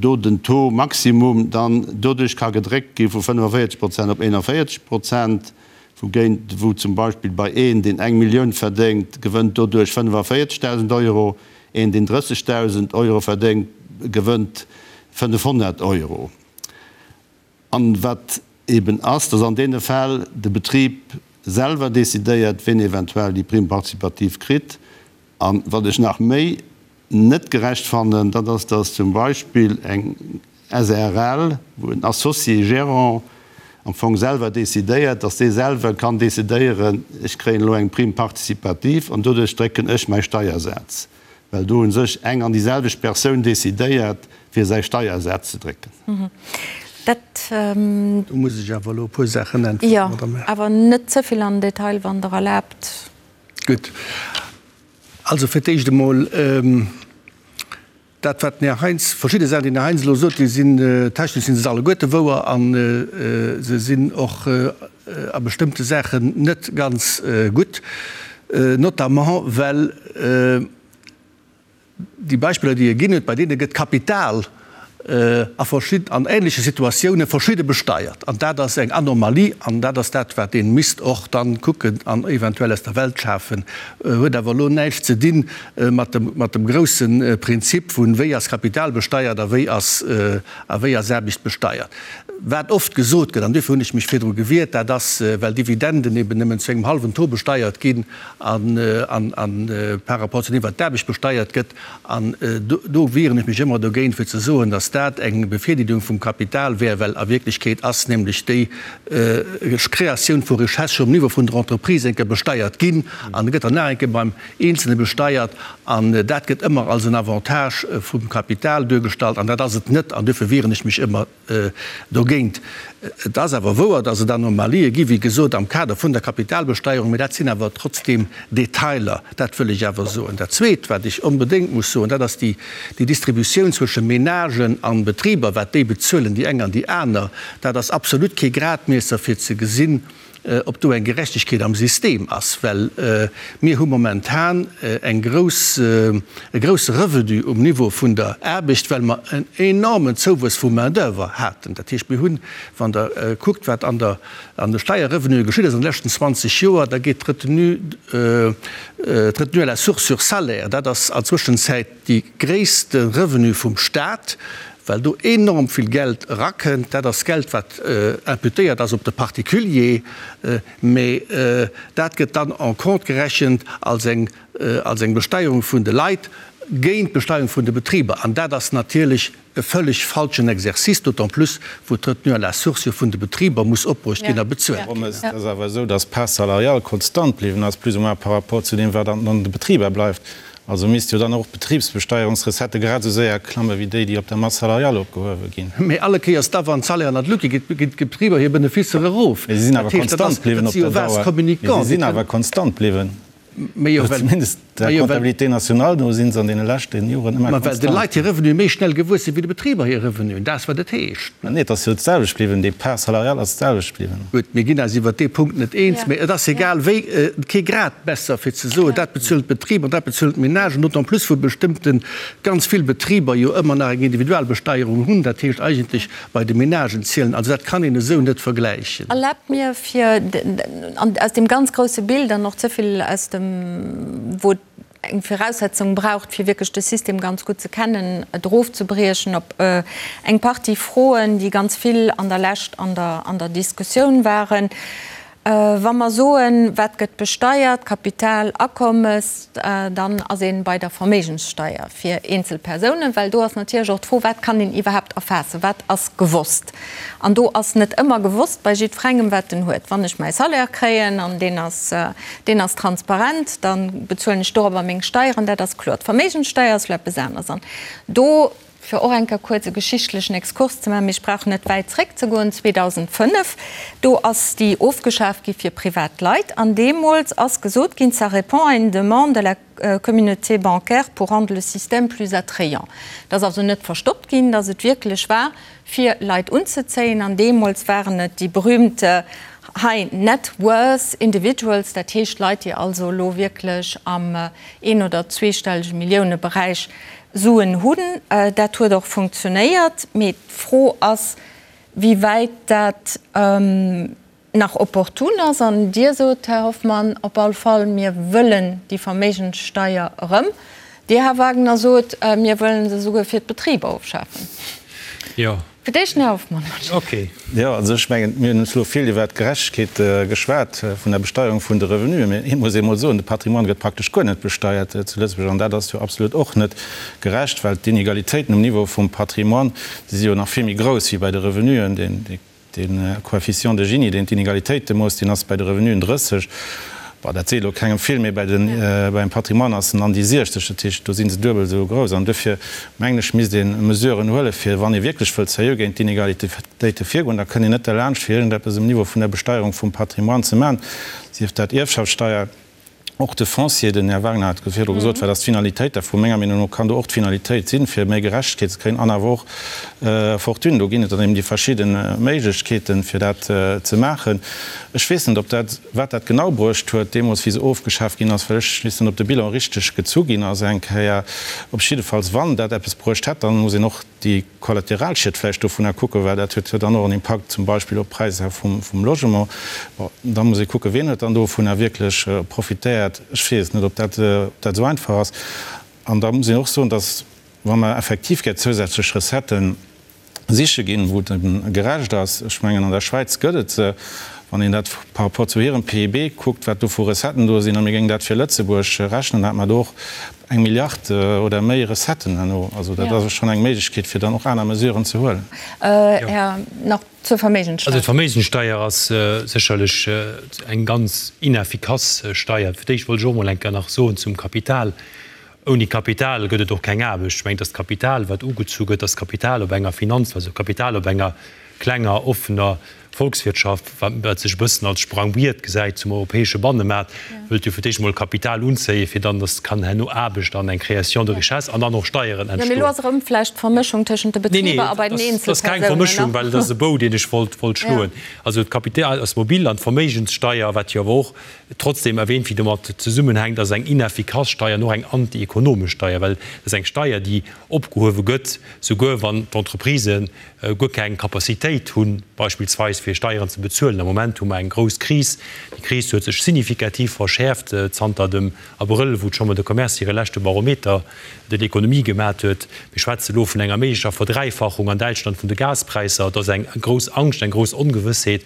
do den Taux maximum dann doduerch ka gedréckt gi vu 45 Prozent op 41 Prozent. Wougéint wou zum Beispill bei een, deen eng Millioun verdéngt, gewënnt doduerch 45.000 Euro, een, deen 30.000 Euro verdéngt, gewënnt 500 Euro. An wat eben ass, dass an deene Fäll de Betrib selwer decidéiert, ween eventuell déi Prime participative kritt. An wat ech nach méi net gerecht fannen, dat ass, dass zum Beispill eng SRL, wou en Associé gérant am Fong selwer decidéiert, dass dee selwer kann decidéieren, ech kréien elo eng Prime participative an doduerch drécken ech mäi Steiersaz, well do u sech eng an déi selwecht Persoun decidéiert, fir säi Steiersaz ze drécken. Dat. Do muss ech awer elo e puer Saachen äntweren, Madame Err. Jo, awer net ze vill an den Detail, wann Der erlaabt. Gutt. Also fir d'éischt emol dat, wat den Här Heintz, verschidde Saachen, déi den Här Heintz elo sot, déi sinn, technesch si se alleguerte wouer a se sinn och a bestëmmte Saachen net ganz gutt, notamment well, Déi Beispiller, déi e ginn huet, bei deene gëtt Kapital a verschid-, an ähnleche Situatioune verschidde besteiert. An dat ass eng Anomalie an dat ass dat, wat ee misst och dann kucken an eventuell aus der Welt schafen. Huet awer elo näischt ze di mat dem, mat dem grousse Prinzip vun, wéi ass Kapital besteiert a wéi ass, a wéi ass Aarbecht besteiert. Wat oft gesot gëtt, an duerfir hunn ech mech virdru gewiert, dat ass, well Dividenden eben nëmmen zu engem hallwen Taux besteiert ginn, an par rapport zu deem, wat d'Aarbecht besteiert gëtt. An do wieren ech mech ëmmer dogéint, fir ze soen, datt dat eng Bevirdeelung vum Kapital wär, well a Wierklechkeet ass nämlech déi Kreatioun vu Richesse scho um Niveau vun der Entreprise eng Kéier besteiert ginn an gëtt dann nach eng Kéier beim Eenzelne besteiert. An dat gëtt ëmmer als en Avantage vum Kapital duergestallt an dat ass et net an duerfir wieren ech mech ëmmer Dogéint, et ass awer wouer, datt et Anomalië gi, wéi gesot, am Kader vun der Kapitalbesteierung, mä dat sinn awer trotzdeem Detailer, dat wëll ech awer soen. Dat Zweet, wat ech onbedéngt muss soen, dat ass déi Distributioun zwësche Menagen a Betriber, wat déi bezuelen, déi eng an déi aner, dat ass absolut kee Gradmiesser fir ze gesinn, ob do eng Gerechtegkeet am System ass, well mir hu momentan eng grouss, e grousse Revenu um Niveau vun der Aarbecht, well mer en enormen Zouwuess vu Main-d'oeuvre haten. Dat heescht, mir hunn, wann Der kuckt, wat an der, an de Steierrevenue geschitt ass an de leschten 20 Joer, da geet d'Retenue, d'Retenue à la source sur salaire, dat ass an Zwëschenzäit déi gréisste Revenu vum Stat, well do enorm vill Geld erakënnt. Dat ass Geld, wat imputéiert ass op de Particulier, mä dat gëtt dann en compte gerechent als eng, als eng Besteierung vun de Leit géint d'Besteierung vun de Betriber. An dat ass natierlech e völleg falschen Exercice, d'autant plus wou d'Retenue à la source jo vun de Betriber muss opbruecht ginn a bezuelt ginn. Et ass awer esou, dass d'Part salariale konstant bliwwen ass, plus ou moins par rapport zu deem, wat an de Betriber bleift. Also misst jo dann och d'Betribsbesteierungsrecettë grad esou séier klamme wéi déi, déi op der Masse salariale opgehuewe ginn. Mee alle Kéiers da, wann d'Salairen an d'Luucht ginn, ginn d'Betriber hir Beneficer erof. Mee si sinn awer konstant bliwwen op der Dauer. Mee si sinn awer konstant bliwwen. Zumindest der Comptabilité nationale no si se an deene leschte Joren ëmmer konstant. Ma well de Leit hir Revenue méi schnell gewuess sinn, wéi de Betriber hir Revenuen. Dat ass, wat et heescht. Nee, et ass jo d'selwecht bliwwen. Déi Part salariale ass d'selwecht bliwwen. Gutt, mir ginn eis iwwert dee Punkt net eens, mee et ass egal wéi kee Gradmesser fir ze soen, dat bezuelen d'Betriber an dat bezuelen d'Menagen, d'autant plus wou bestëmmte ganz vill Betriber jo ëmmer nach eng Individualbesteierung hunn, dat heescht eigentlech bei de Menagen zielen. Also dat kann een esou net vergläichen. Erlaabt mir fir aus deem ganz grousse Bild an och ze vill aus dem, wou et eng Viraussetzung braucht, fir wierklech de System ganz gutt ze kennen, et erofzebriechen op eng Partie Froen, déi ganz vill an der Lescht an der, an der Diskussioun waren. Wa mer soen, wat gëtt besteiert, Kapital, Akommes, dann ass ee bei der Verméigenssteier fir eenzel Persounen, well do ass natierlech och d'Fro, wat kann een iwwerhaapt erfaassen, wat ass gewosst. An do ass net ëmmer gewosst bei jiddferengem, wat en huet. Wann ech mäi Salaire kréien an deen ass, deen ass transparent, da bezuelen ech dorobber meng Steieren, dat ass kloer. D'Verméigenssteier ass elo eppes aneres. An do, fir och eng Kéier kuerz e geschichtlechen Exkurs ze maachen, mee ech brauch net wäit zréckzegoen, 2005, do ass déi ofgeschaaft gi fir privat Leit. An deemools ass gesot ginn, ça répond à une demande de la communauté bancaire pour rendre le système plus attrayant. Et ass also net verstoppt ginn, dass et wierklech war, fir Leit unzezéien. An deemools waren et déi berühmte High Net Worth Individuals, dat heescht Leit, déi also elo wierklech am een oder zweestellege Milliouneberäich Suen hunn. Dat huet och funktionéiert. Mee d'Fro ass, wéi wäit dat nach opportun ass. An Dir sot, Här Hoffmann, op all Fall, mir wëllen déi Verméigenssteier erëm. Dir, Här Wagner, sot, mir wëllen se esouguer fir d'Betriber ofschafen. Jo. Fir d'éischt den Här Hoffmann. Okay. Jo, also ech mengen, mir hunn elo vill iwwert d'Gerechtegkeet geschwat vun der Besteierung vun de Revenuen, mee ee muss emol soen, de Patrimoine gëtt praktesch guer net besteiert zu Lëtzebuerg an dat ass jo absolut och net gerecht, well d'Inegalitéiten um Niveau vum Patrimoine, déi si jo nach vill méi grouss wéi bei de Revenuen. De Coefficient de Gini, deen d'Inegalitéite moosst, deen ass bei de Revenuen 30, bon, dat seet elo kengem vill, mee bei den, beim Patrimoine ass en an déi 60, dat heescht, do si se duebel esou grouss. An duerfir mengen ech, misst ee Mesuren huelen, fir, wann ee wierklech wëllt seriö géint d'Inegalitéite virgoen, da kënnt een net derlaanscht, fir iergendeppes um Niveau vun der Besteierung vum Patrimoine ze maachen, sief dat Ierfschaftssteier, Och de Foncier, den Här Wagner hat et virdru gesot, wat ass d'Finalitéit dervu? Menger Meenung no kann do och d'Finalitéit sinn, fir méi Gerechtegkeet ze kréien an awer och Fortune. Do ginn et dann eben déi verschidde Méiglechkeeten, fir dat ze maachen. Ech weess net, ob dat, wat dat genau bruecht huet deemools, wéi se ofgeschaaft ginn ass, well ech weess net, ob de Bilan richteg gezu ginn ass eng Kéier. Op jiddefalls, wann dat eppes bruecht hätt, dann muss een och déi Kollateralschied vläicht dovunner kucken, well dat huet jo dann och en Impakt zum Beispill op d'Präisser vum Logement. Bon, da muss ee kucken, wien huet dann dovunner wierklech profitéiert. Ech weess net, ob dat esou einfach ass. An da muss een och soen, dass, wa mer effektiv gär zousätzlech Recetten. Siche ginn, wou et eben gerecht ass. Ech mengen, an der Schwäiz gëtt et se, wann een dat par rapport zu hirem PIB kuckt, wat do vu Recetten do sinn, a mir géingen dat fir Lëtzebuerg rechnen, da hätte mer do och eng Milliard oder méi Recetten herno. Also dat ass schonn eng Méiglechkeet, fir dann och aner Mesuren ze huelen. Här, nach zur Verméigenssteier. Also d'Verméigenssteier ass sécherlech eng ganz ineffikass Steier. Fir d'éischt wollt ech och emol eng Kéier nach soen zum Kapital, Ouni Kapital gëtt et och keng Aarbecht. Ech mengen, dass d'Kapital, wat ugezu gëtt, dass Kapital op enger Finanz, also Kapital op enger klenger, offener Volkswirtschaft, wat sech e bëssen als Sprangbriet gesäit zum europäesche Bannemaart, wëllt jo fir d'éischt emol Kapital unzéien, fir dann, dass kann herno Aarbecht an eng Création de richesse an dann och Steieren entstoen. Jo, mee elo ass erëm vläicht d'Vermëschung tëschent de Betriber a bei den Eenzelpersounen. Nee, dat ass keng Vermëschung, well et ass e Bou, deen ech wollt schloen. Also d'Kapital ass mobil an d'Verméigenssteier, wat jo awer och Trotzdem erwähnt, wéi domat zesummenhänkt, ass eng ineffikass Steier an och eng anti-ekonomesch Steier, well et ass eng Steier, déi opgehuewe gëtt, souguer wann d'Entreprisë guer keng Capacitéit hunn, beispillsweis fir Steieren ze bezuelen. Am Moment hu mer eng grouss Kris. Déi Kris huet sech signifikativ verschäerft zanter dem Abrëll, wou d'Chambre de Commerce hire leschte Barometer de l'économie gemat huet. Mir schwätze elo vun enger méiglecher Verdräifachung an Däitschland vun de Gaspräisser. Et ass eng grouss Angscht, eng grouss Ongewëssheet.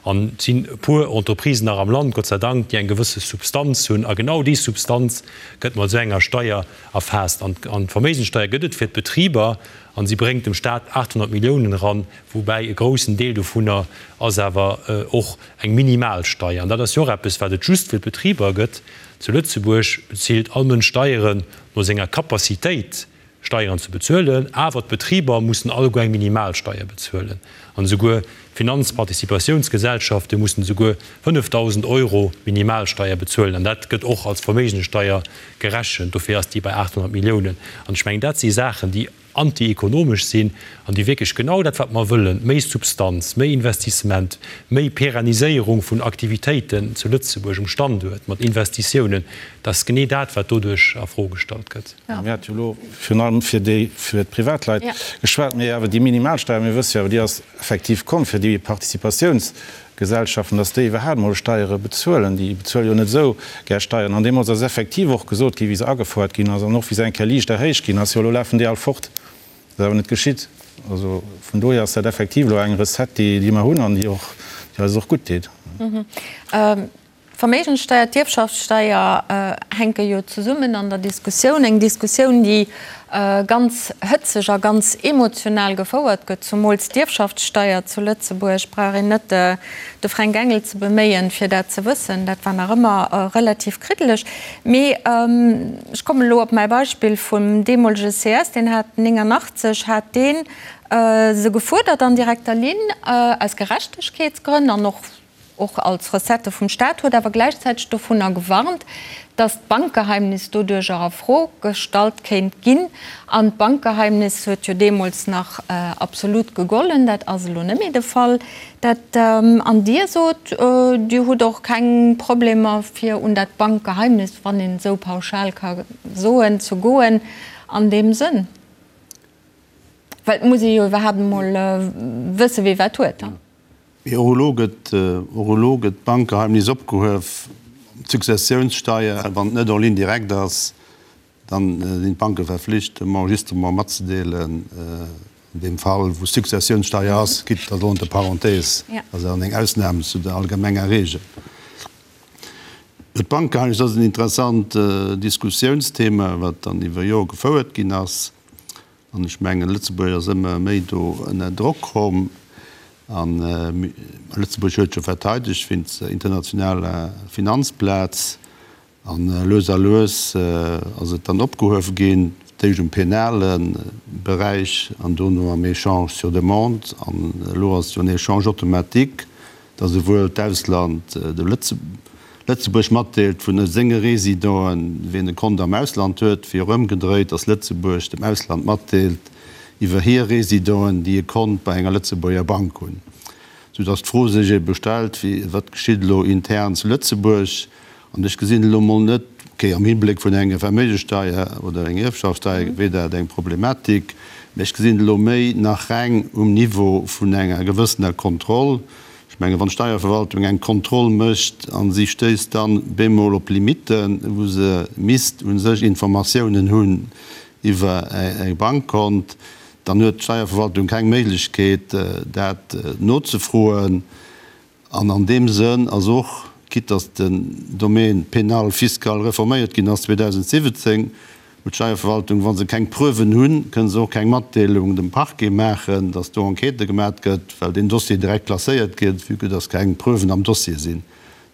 An et sinn e puer Entreprisen nach am Land, Gott sei Dank, déi eng gewësse Substanz hunn. A genau déi Substanz gëtt mat esou enger Steier erfaasst. An d'Verméigenssteier gëtt et fir d'Betriber a si bréngt dem Staat 800 Milliounen eran, woubäi e groussen Deel dovunner ass awer och eng Minimalsteier. An dat ass jo och eppes, wat et just fir d'Betriber gëtt. Zu Lëtzebuerg bezilt all Mënsch Steieren no senger Capacitéit. Steieren ze bezuelen, awer d'Betriber mussen alleguer eng Minimalsteier bezuelen an esouguer d'Finanzparticipatiounsgesellschafte mussen esouguer 5.000 Euro Minimalsteier bezuelen an dat gëtt och als Verméigenssteier gerechent. Dofir ass déi bei 800 Milliounen. An ech mengen, dat si Saachen, déi antiekonomesch sinn an déi wierklech genau dat, wat mer wëllen, méi Substanz, méi Investissement, méi Perenniséierung vun Aktivitéiten zu Lëtzebuerg um Standuert mat Investitiounen, dat ass genee dat, wat doduerch a Fro gestallt gëtt. Mir hate jo elo virun allem fir déi, fir d'Privatleit geschwat, mee awer déi Minimalsteier, mir wësse jo awer, déi ass effektiv komm fir déi Participatiounsgesellschaften, dass déi iwwerhaapt emol Steiere bezuelen. Déi bezuele jo net esou gär Steieren. An deemools ass effektiv och gesot ginn, wéi se agefouert ginn ass an och wéi se eng Kéier liicht erhéicht ginn ass, jo elo lafen déi all fort. Dat ass awer net geschitt. Also vun dohier ass dat effektiv elo eng Recette, déi, déi mer hunn an déi och, déi eis och gutt deet. D'Verméigenssteier, d'Ierfschaftssteier hänke jo zesummen an der Diskussioun. Eng Diskussioun, déi ganz hëtzeg a ganz emotional gefouert gëtt. Zumools d'Ierfschaftssteier zu Lëtzebuerg, brauch een net de Fränk Engel ze beméien, fir dat ze wëssen. Dat war nach ëmmer relativ kriddeleg. Mee ech kommen elo op mäi Beispill vum deemolege CS, deen hat 89 hat dee se gefuerdert an direkter Linn, aus Gerechtegkeetsgrënn an och och als Recettë vum Staat, huet awer gläichzäiteg dovunner gewarnt, datt d'Bankgeheimnis doduercher a Fro gestallt kéint ginn. An d'Bankgeheimnis huet jo deemools nach absolut gegollen, dat ass elo net méi de Fall. Dat, an Dir sot, Dir hutt och keng Problemer fir un dat Bankgeheimnis, wann een esou pauschal ka soen, ze goen an deem Sënn. Well et muss ee jo iwwerhaapt emol wësse wie wat huet. Mee och elo gëtt, och elo gëtt d'Bankgeheimnis opgehuef. D'Successiounssteier, wann et net en ligne directe ass, dann sinn d'Banke verflicht, dem Enregistrement matzedeelen. An deem Fall, wou Successiounssteier ass, gitt dat elo entre parenthèses, ass awer eng Ausnam zu der allgemenger Regel. D'Bankgeheimnis ass en interessant Diskussiounsthema, wat dann iwwer Jore gefouert ginn ass. An ech mengen, Lëtzebuerg ass ëmmer méi do ënner Drock komm. A Lëtzebuerg huet jo verteidegt wéinst der internationaler Finanzplaz. A lues a lues ass et dann opgehuewe ginn, d'éischt um penale Beräich an dono am Échange sur demande. An elo ass et jo en Échange automatique. datt esouwuel d'Ausland dem Lëtzebuerg matdeelt vun senge Résidenten, wien e Kont am Ausland huet, wéi och ëmgedréit, datt Lëtzebuerg dem Ausland matdeelt iwwer hir Résidenten, déi e Kont bei enger Lëtzebuerger Bank hunn. Soudatt d'Fro sech ebe stellt, wéi, wat geschitt elo intern zu Lëtzebuerg? An ech gesinn elo mol net, okay, am Hibléck vun enger Verméigenssteier oder enger Ierfschaftssteier wier dat eng Problematik, mä ech gesinn et elo méi nach reng um Niveau vun enger gewëssener Kontroll. Ech mengen, wann d'Steierverwaltung eng Kontroll mécht a si stéisst dann bemol op Limitten, wou se misst u sech Informatiounen hunn iwwer e Bankkont. Dann huet d'Steierverwaltung keng Méiglechkeet, dat nozefroen. An an deem Sënn ass och, quitte dass den Domaine pénal fiscal reforméiert ginn ass 2017, huet d'Steierverwaltung, wa se keng Preuven hunn, kënne se och keng Matdeelung dem Parquet maachen, dass do Enquête gemat gëtt, well deen Dossier direkt klasséiert gëtt, vue que dass keng Preuven am Dossier sinn.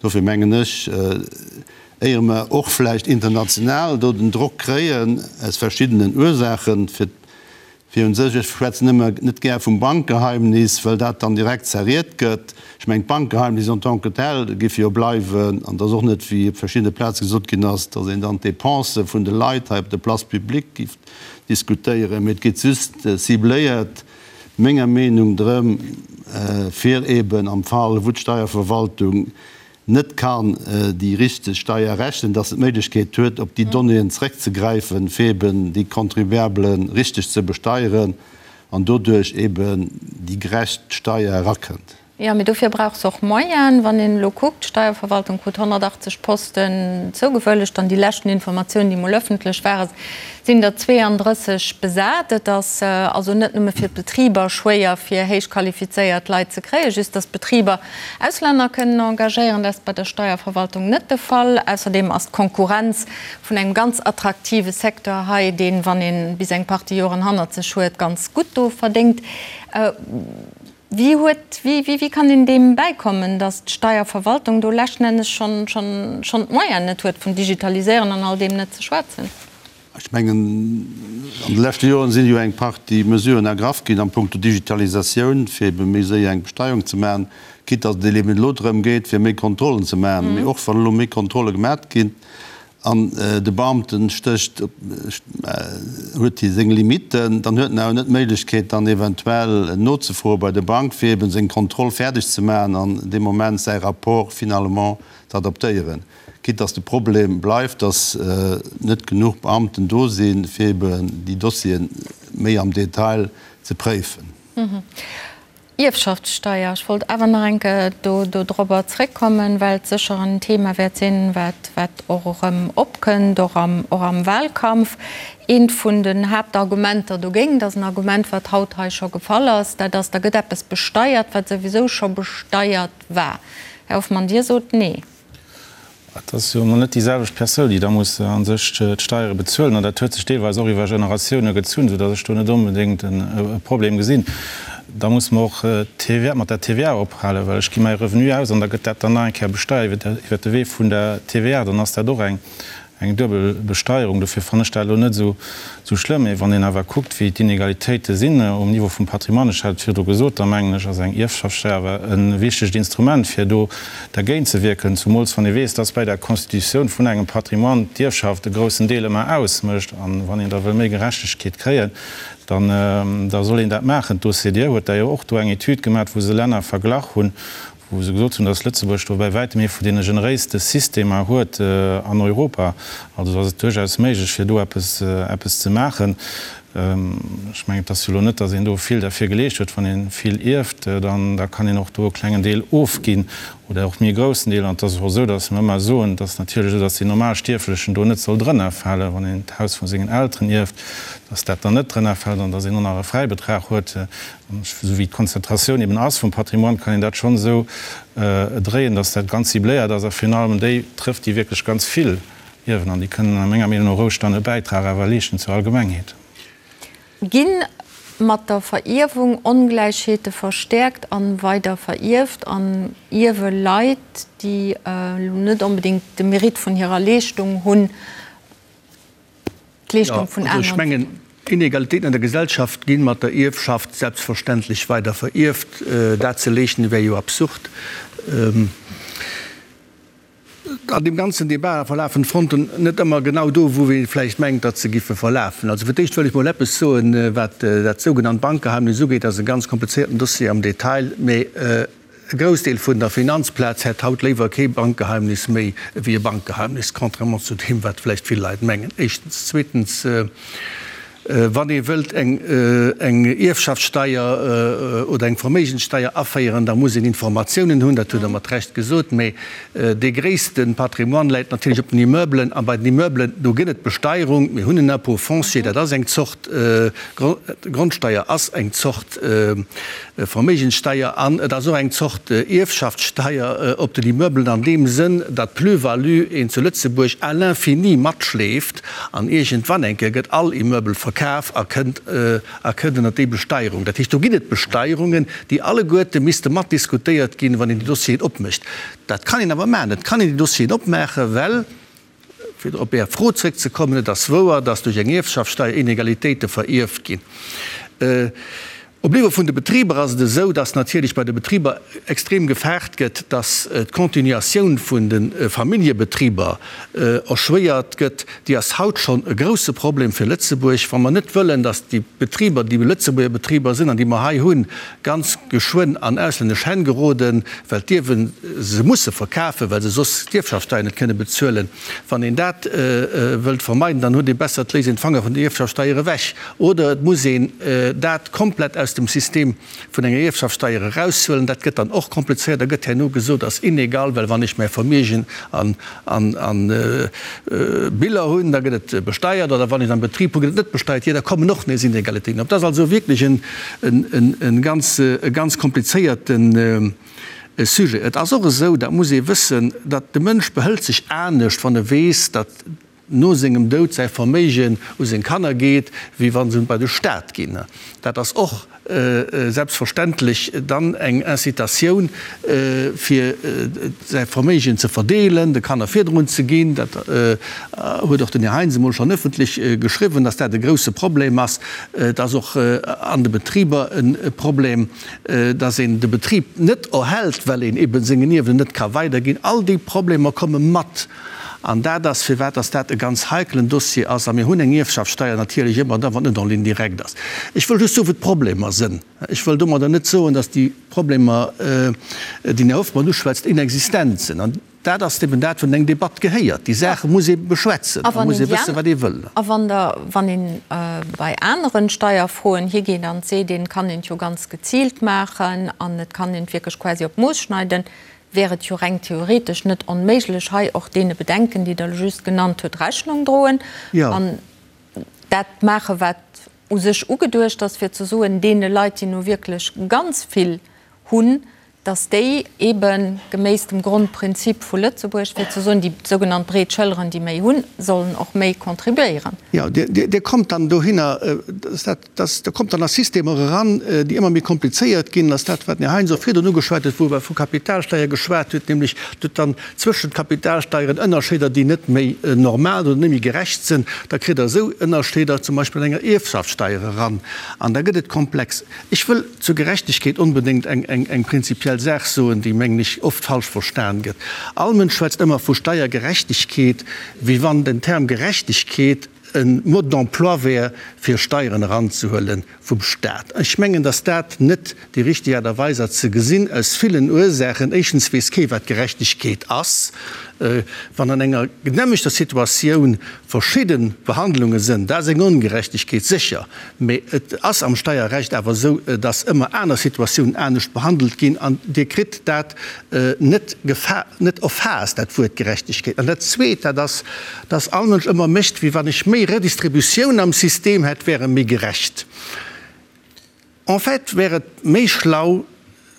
Dofir mengen ech, éier mer och vläicht international do den Drock kréien, aus verschiddenen Ursaachen, fir fir un sech, ech schwätzen ëmmer net gär vum Bankgeheimnis, well dat dann direkt zerriet gëtt. Ech mengen, d'Bankgeheimnis en tant que tel géif jo bleiwen, an et ass och net, wéi op verschiddene Plaze gesot ginn ass, datt een dann d'Dépensë vun de Leit hei op der Place publique géif diskutéieren, mee et geet just cibléiert, menger Meenung, drëm, fir eben am Fall, wou d'Steierverwaltung net kann déi richteg Steier rechnen, dass se d'Méiglechkeet huet, op déi Donnéeën zréckzegräifen, fir eben déi Contribuabele richteg ze besteieren an doduerch eben déi gerecht Steier erakënnt. Jo, mee dofir brauch se och Moyenen. Wann een elo kuckt, d'Steierverwaltung krut 180 Posten zougewëllegt an déi leschten Informatiounen, déi mol ëffentlech waren, sinn der 32 besat. Et ass also net nëmme fir d'Betriber schwéier, fir héich qualifizéiert Leit ze kréien, just datt d'Betriber Auslänner kënnen engagéieren, dat ass bei der Steierverwaltung net de Fall. Ausserdeem ass d'Konkurrenz vun engem ganz attraktive Secteur hei, deen, wann ee bis eng Partie Joren hannert sech huet, ganz gutt do verdéngt. Wéi huet, wéi, wéi kann een deem bäikommen, datt d'Steierverwaltung do leschten Ennes schonn, schonn, schonn d'Moyenen net huet, vun Digitaliséieren an all deem net ze schwätzen? Ech mengen, an de leschte Joren si jo eng Partie Mesuren ergraff ginn am Punkto Digitalisatioun, fir ebe méi séier eng Besteierung ze maachen, quitte datt et eben elo drëm geet, fir méi Kontrollen ze maachen. Mee och wann elo méi Kontrolle gemat ginn, An de Beamten stécht, huet hie seng Limiten, dann huet en awer net d'Méiglechkeet dann eventuell nozefroe bei der Bank, fir eben seng Kontroll fäerdeg ze maachen an dee Moment säi Rapport finalement z'adaptéieren. Quitte dass de Problem bleift, dass net genuch Beamten do sinn, fir eben déi Dossiere méi am Detail ze préifen. Ierfschaftssteier, ech wollt awer nach eng Kéier do dorobber zréckkommen, well et sécher en Thema wäert sinn, wat, wat och erëm opkënnt, och am, och am Wahlkampf. Eent vun den Haaptargumenter dogéint ass en Argument, wat haut hei scho gefall ass, dat ass, da gëtt eppes besteiert, wat souwisou scho besteiert war. Här Hoffmann, Dir sot Nee. Et ass jo emol net déi selwecht Persoun, déi da muss a sech d'Steiere bezuelen. An dat huet sech deelweis och iwwer Generatioune gezunn, soudatt ech do net onbedéngt e Problem gesinn. Da muss mer och d'TVA, mat der TVA ophalen, well ech gi mäi Revenu aus an da gëtt dat dann nach eng Kéier besteiert iwwer de Wee vun der TVA. Dann ass dat och eng Eng duebel Besteierung, dofir fannen ech dat elo net esou schlëmm. Mee wann een awer kuckt, wéi d'Inegalitéite sinn um Niveau vum Patrimoine, ech hat et virdru gesot, da mengen ech, ass eng Ierfschaftssteier awer e wichtegt Instrument, fir do dergéint ze wierken, zumools wann ee weess, dass bei der Constitutioun vun engem Patrimoine d'Ierfschaft e groussen Deel ëmmer ausmécht. A wann een da wëll méi Gerechtegkeet kréien, dann da soll een dat maachen. D'OCDE huet da jo och do eng Etüd gemaach, wou se Länner verglach hunn, wou se gesot hunn, datt Lëtzebuerg do bäi wäitem ee vun deene generéiste Systemer huet an Europa. Also ass et duerchaus méiglech, fir do eppes, eppes ze maachen. Ech mengen, et ass jo elo net, datt een do vill derfir geleescht huet. Wann ee vill ierft, dann da kann een och do e klengen Deel ofginn oder och méi e groussen Deel. An et ass och esou, datt mer ëmmer soen, et ass natierlech esou, datt deen normal Stierflechen do net soll drënnerfalen, wann een d'Haus vu sengen Elteren ierft, datt dat dann net drënnerfält an datt een och nach e Fräibetrag huet. Esou wéi d'Konzentratioun eben ass vum Patrimoine, kann een dat schonn esou dréien, datt dat ganz cibléiert ass a virun allem déi trëfft, déi wierklech ganz vill ierwen. An déi kënnen a menger Meenung no roueg dann e Bäitrag awer leeschten zur Allgemengheet. Gi mat der Verierwung Ongläichheete verstäerkt a weider verierft an ierwe Leit, déi elo net onbedéngt de Mérite vun hirer Leeschtung hunn, d'Leeschtung vun aneren. Ech mengen, d'Inegalitéiten an der Gesellschaft gi mat der Ierfschaft selbstverständlech weider verierft. Dat ze leegnen, wär jo absurd. An deem ganzen Debat verlafen d'Fronten net ëmmer genau do, wou ee vläicht mengt, datt se giffe verlafen. Also fir d'éischt wëll ech mol eppes soen, wat dat sougenannt Bankgeheimnis ugeet. Dat ass e ganz komplizéierten Dossier am Detail, mee E Groussdeel vun der Finanzplaz hätt haut léiwer kee Bankgeheimnis méi ewéi e Bankgeheimnis, contrairement zu deem, wat vläicht vill Leit mengen, éischtens. Zweetens. Wann ee wëllt eng Ierfschaftssteier oder eng Verméigenssteier aféieren, da muss een Informatiounen hunn, dat hutt Der mat Recht gesot. Mä dee gréisste Patrimoine läit natierlech op den Immeublen. A bei den Immeublen, do gëtt et Besteierung. Mir hunn en Impôt foncier, dat ass eng Zort Grondsteier, ass eng Zort Verméigenssteier an et ass och eng Zort Ierfschaftssteier op den Immeublen an deem Sënn, datt d'Plus-value een zu Lëtzebuerg à l'infini matschleeft an iergendwann eng Kéier gëtt all Immeuble verkaf a kënnt a kënnt ënnert déi Besteierung. Dat heescht, do ginn et Besteierungen, déi alleguerte misste matdiskutéiert ginn, wann een déi Dossieren opmécht. Dat kann een awer maachen. Et kann een déi Dossieren opmaachen, well, fir op Är Fro zrëckzekommen, et ass wouer, datt duerch eng Ierfschaftssteier Inegalitéite verierft ginn. Op Niveau vun de Betriber ass et esou, dass natierlech bei de Betriber extrem gefaart gëtt, dass d'Continuatioun vun de Familljebetriber erschwéiert gëtt. Déi ass haut schonn e grouse Problem fir Lëtzebuerg. Wa mer net wëllen, dass déi Betriber, déi Lëtzebuerger Betriber sinn an déi mer hei hunn, ganz geschwënn an auslännesch Hänn geroden, well d'Ierwen se musse verkafen, well se soss d'Ierfschaftssteier net kënne bezuelen, Wann een dat wëllt vermeiden, dann huet ee besser, et léisst een d'Fanger vun der Ierfschaftssteier ewech oder et muss een dat komplett aus dem System vun enger Ierfschaftssteier eraushuelen. Dat gëtt dann och komplizéiert. Da gëtt herno gesot, ass inegal, well wann ech mäi Vermiegen an Biller hunn, da gëtt et besteiert, oder wann ech et am Betrib hunn, gëtt et net besteiert. Jo, da kommen och nees Inegalitéiten op. Dat ass also wierklech e ganz komplizéierten. E Sujet. Et ass och esou, dat muss ee wëssen, datt de Mënsch behëlt sech anescht, wann e weess, datt no sengem Doud säi Verméigen u seng Kanner geet, wéi wa se bei de Staat ginn. Dat ass och selbstverständlech dann eng Incitatioun, fir säi Verméigen ze verdeelen, de Kanner virdrun ze ginn. Dat huet och den Här Heintz emol schonn ëffentlech geschriwwen, datt dat e grouse Problem ass. Et ass och an de Betriber e Problem. dass een de Betrib net erhält, well een eben sengen Ierwen net ka weiderginn. All déi Problemer komme mat. An dat ass, firwat dass dat e ganz heikelen Dossier ass. A mir hunn eng Ierfschaftssteier natierlech ëmmer da, wann et net en ligne directe ass. Ech wëll just soen, wou d'Problemer sënn. Ech wëll domadder net soen, dass déi Problemer, déi den Här Hoffmann uschwätzt, inexistent sinn. An Dat ass eben dat, wat an eng Debatt gehéiert. Déi Saache muss ee beschwätzen, da muss ee wëssen, wat ee wëll. A wann Der, wann ee bei aneren Steierfroen higeet an seet, een kann een et jo ganz geziilt maachen an et kann een et wierklech quasi op d'Mooss schneiden, wär et jo reng theoretesch net onméiglech, hei och deene Bedenken, déi Der elo just genannt hutt, Rechnung droen an dat maachen, wat u sech ugeduecht ass, fir ze soen, deene Leit, déi nu wierklech ganz vill hunn, dass déi eebe geméiss dem Grondprinzip vu Lëtzebuerg, fir ze soen, déi sougenannt breet Schëlleren, déi méi hunn, sollen och méi contribuéieren. Jo, Dir kommt dann dohinner, dass dat, dass, Der kommt dann a Systemer eran, déi ëmmer méi komplizéiert ginn, dass dat, wat den Här Heintz och virdrun ugeschwat huet, wou e vu Kapitalsteier geschwat huet, nämlech et dann zwëschent Kapitalsteieren Ënnerscheeder, déi net méi normal oder net méi gerecht sinn, da kritt Der esou Ënnerscheeder zum Beispill an enger Ierfschaftssteier eran an da gëtt et komplex. Ech wëll zur Gerechtegkeet onbedéngt eng prinzipiell Saach soen, déi, mengen ech, oft falsch verstan gëtt. All Mënsch schwätzt ëmmer vu Steiergerechtegkeet, wéi wann den Term Gerechtegkeet e Mode d'emploi wär, fir Steieren eranzehuele vum Stat. Ech mengen, datt dat net déi richteg Aart a Weis ass ze gesinn, aus villen Ursaachen. Éischtens weess kee wat Gerechtegkeet ass. Wann an enger genehmegter Situatioun verschidde Behandlunge sënn, dat ass eng Ongerechtegkeet, sécher. Mee et ass am Steierrecht awer esou, dass ëmmer aner Situatiounen anescht behandelt ginn an Dir kritt dat net net erfaasst, dat Wuert Gerechtegkeet. An dat Zweet, dat ass, dass all Mënsch ëmmer mécht, wéi wann ech méi Redistributioun am System hätt, wär e méi gerecht. En fait wär et méi schlau,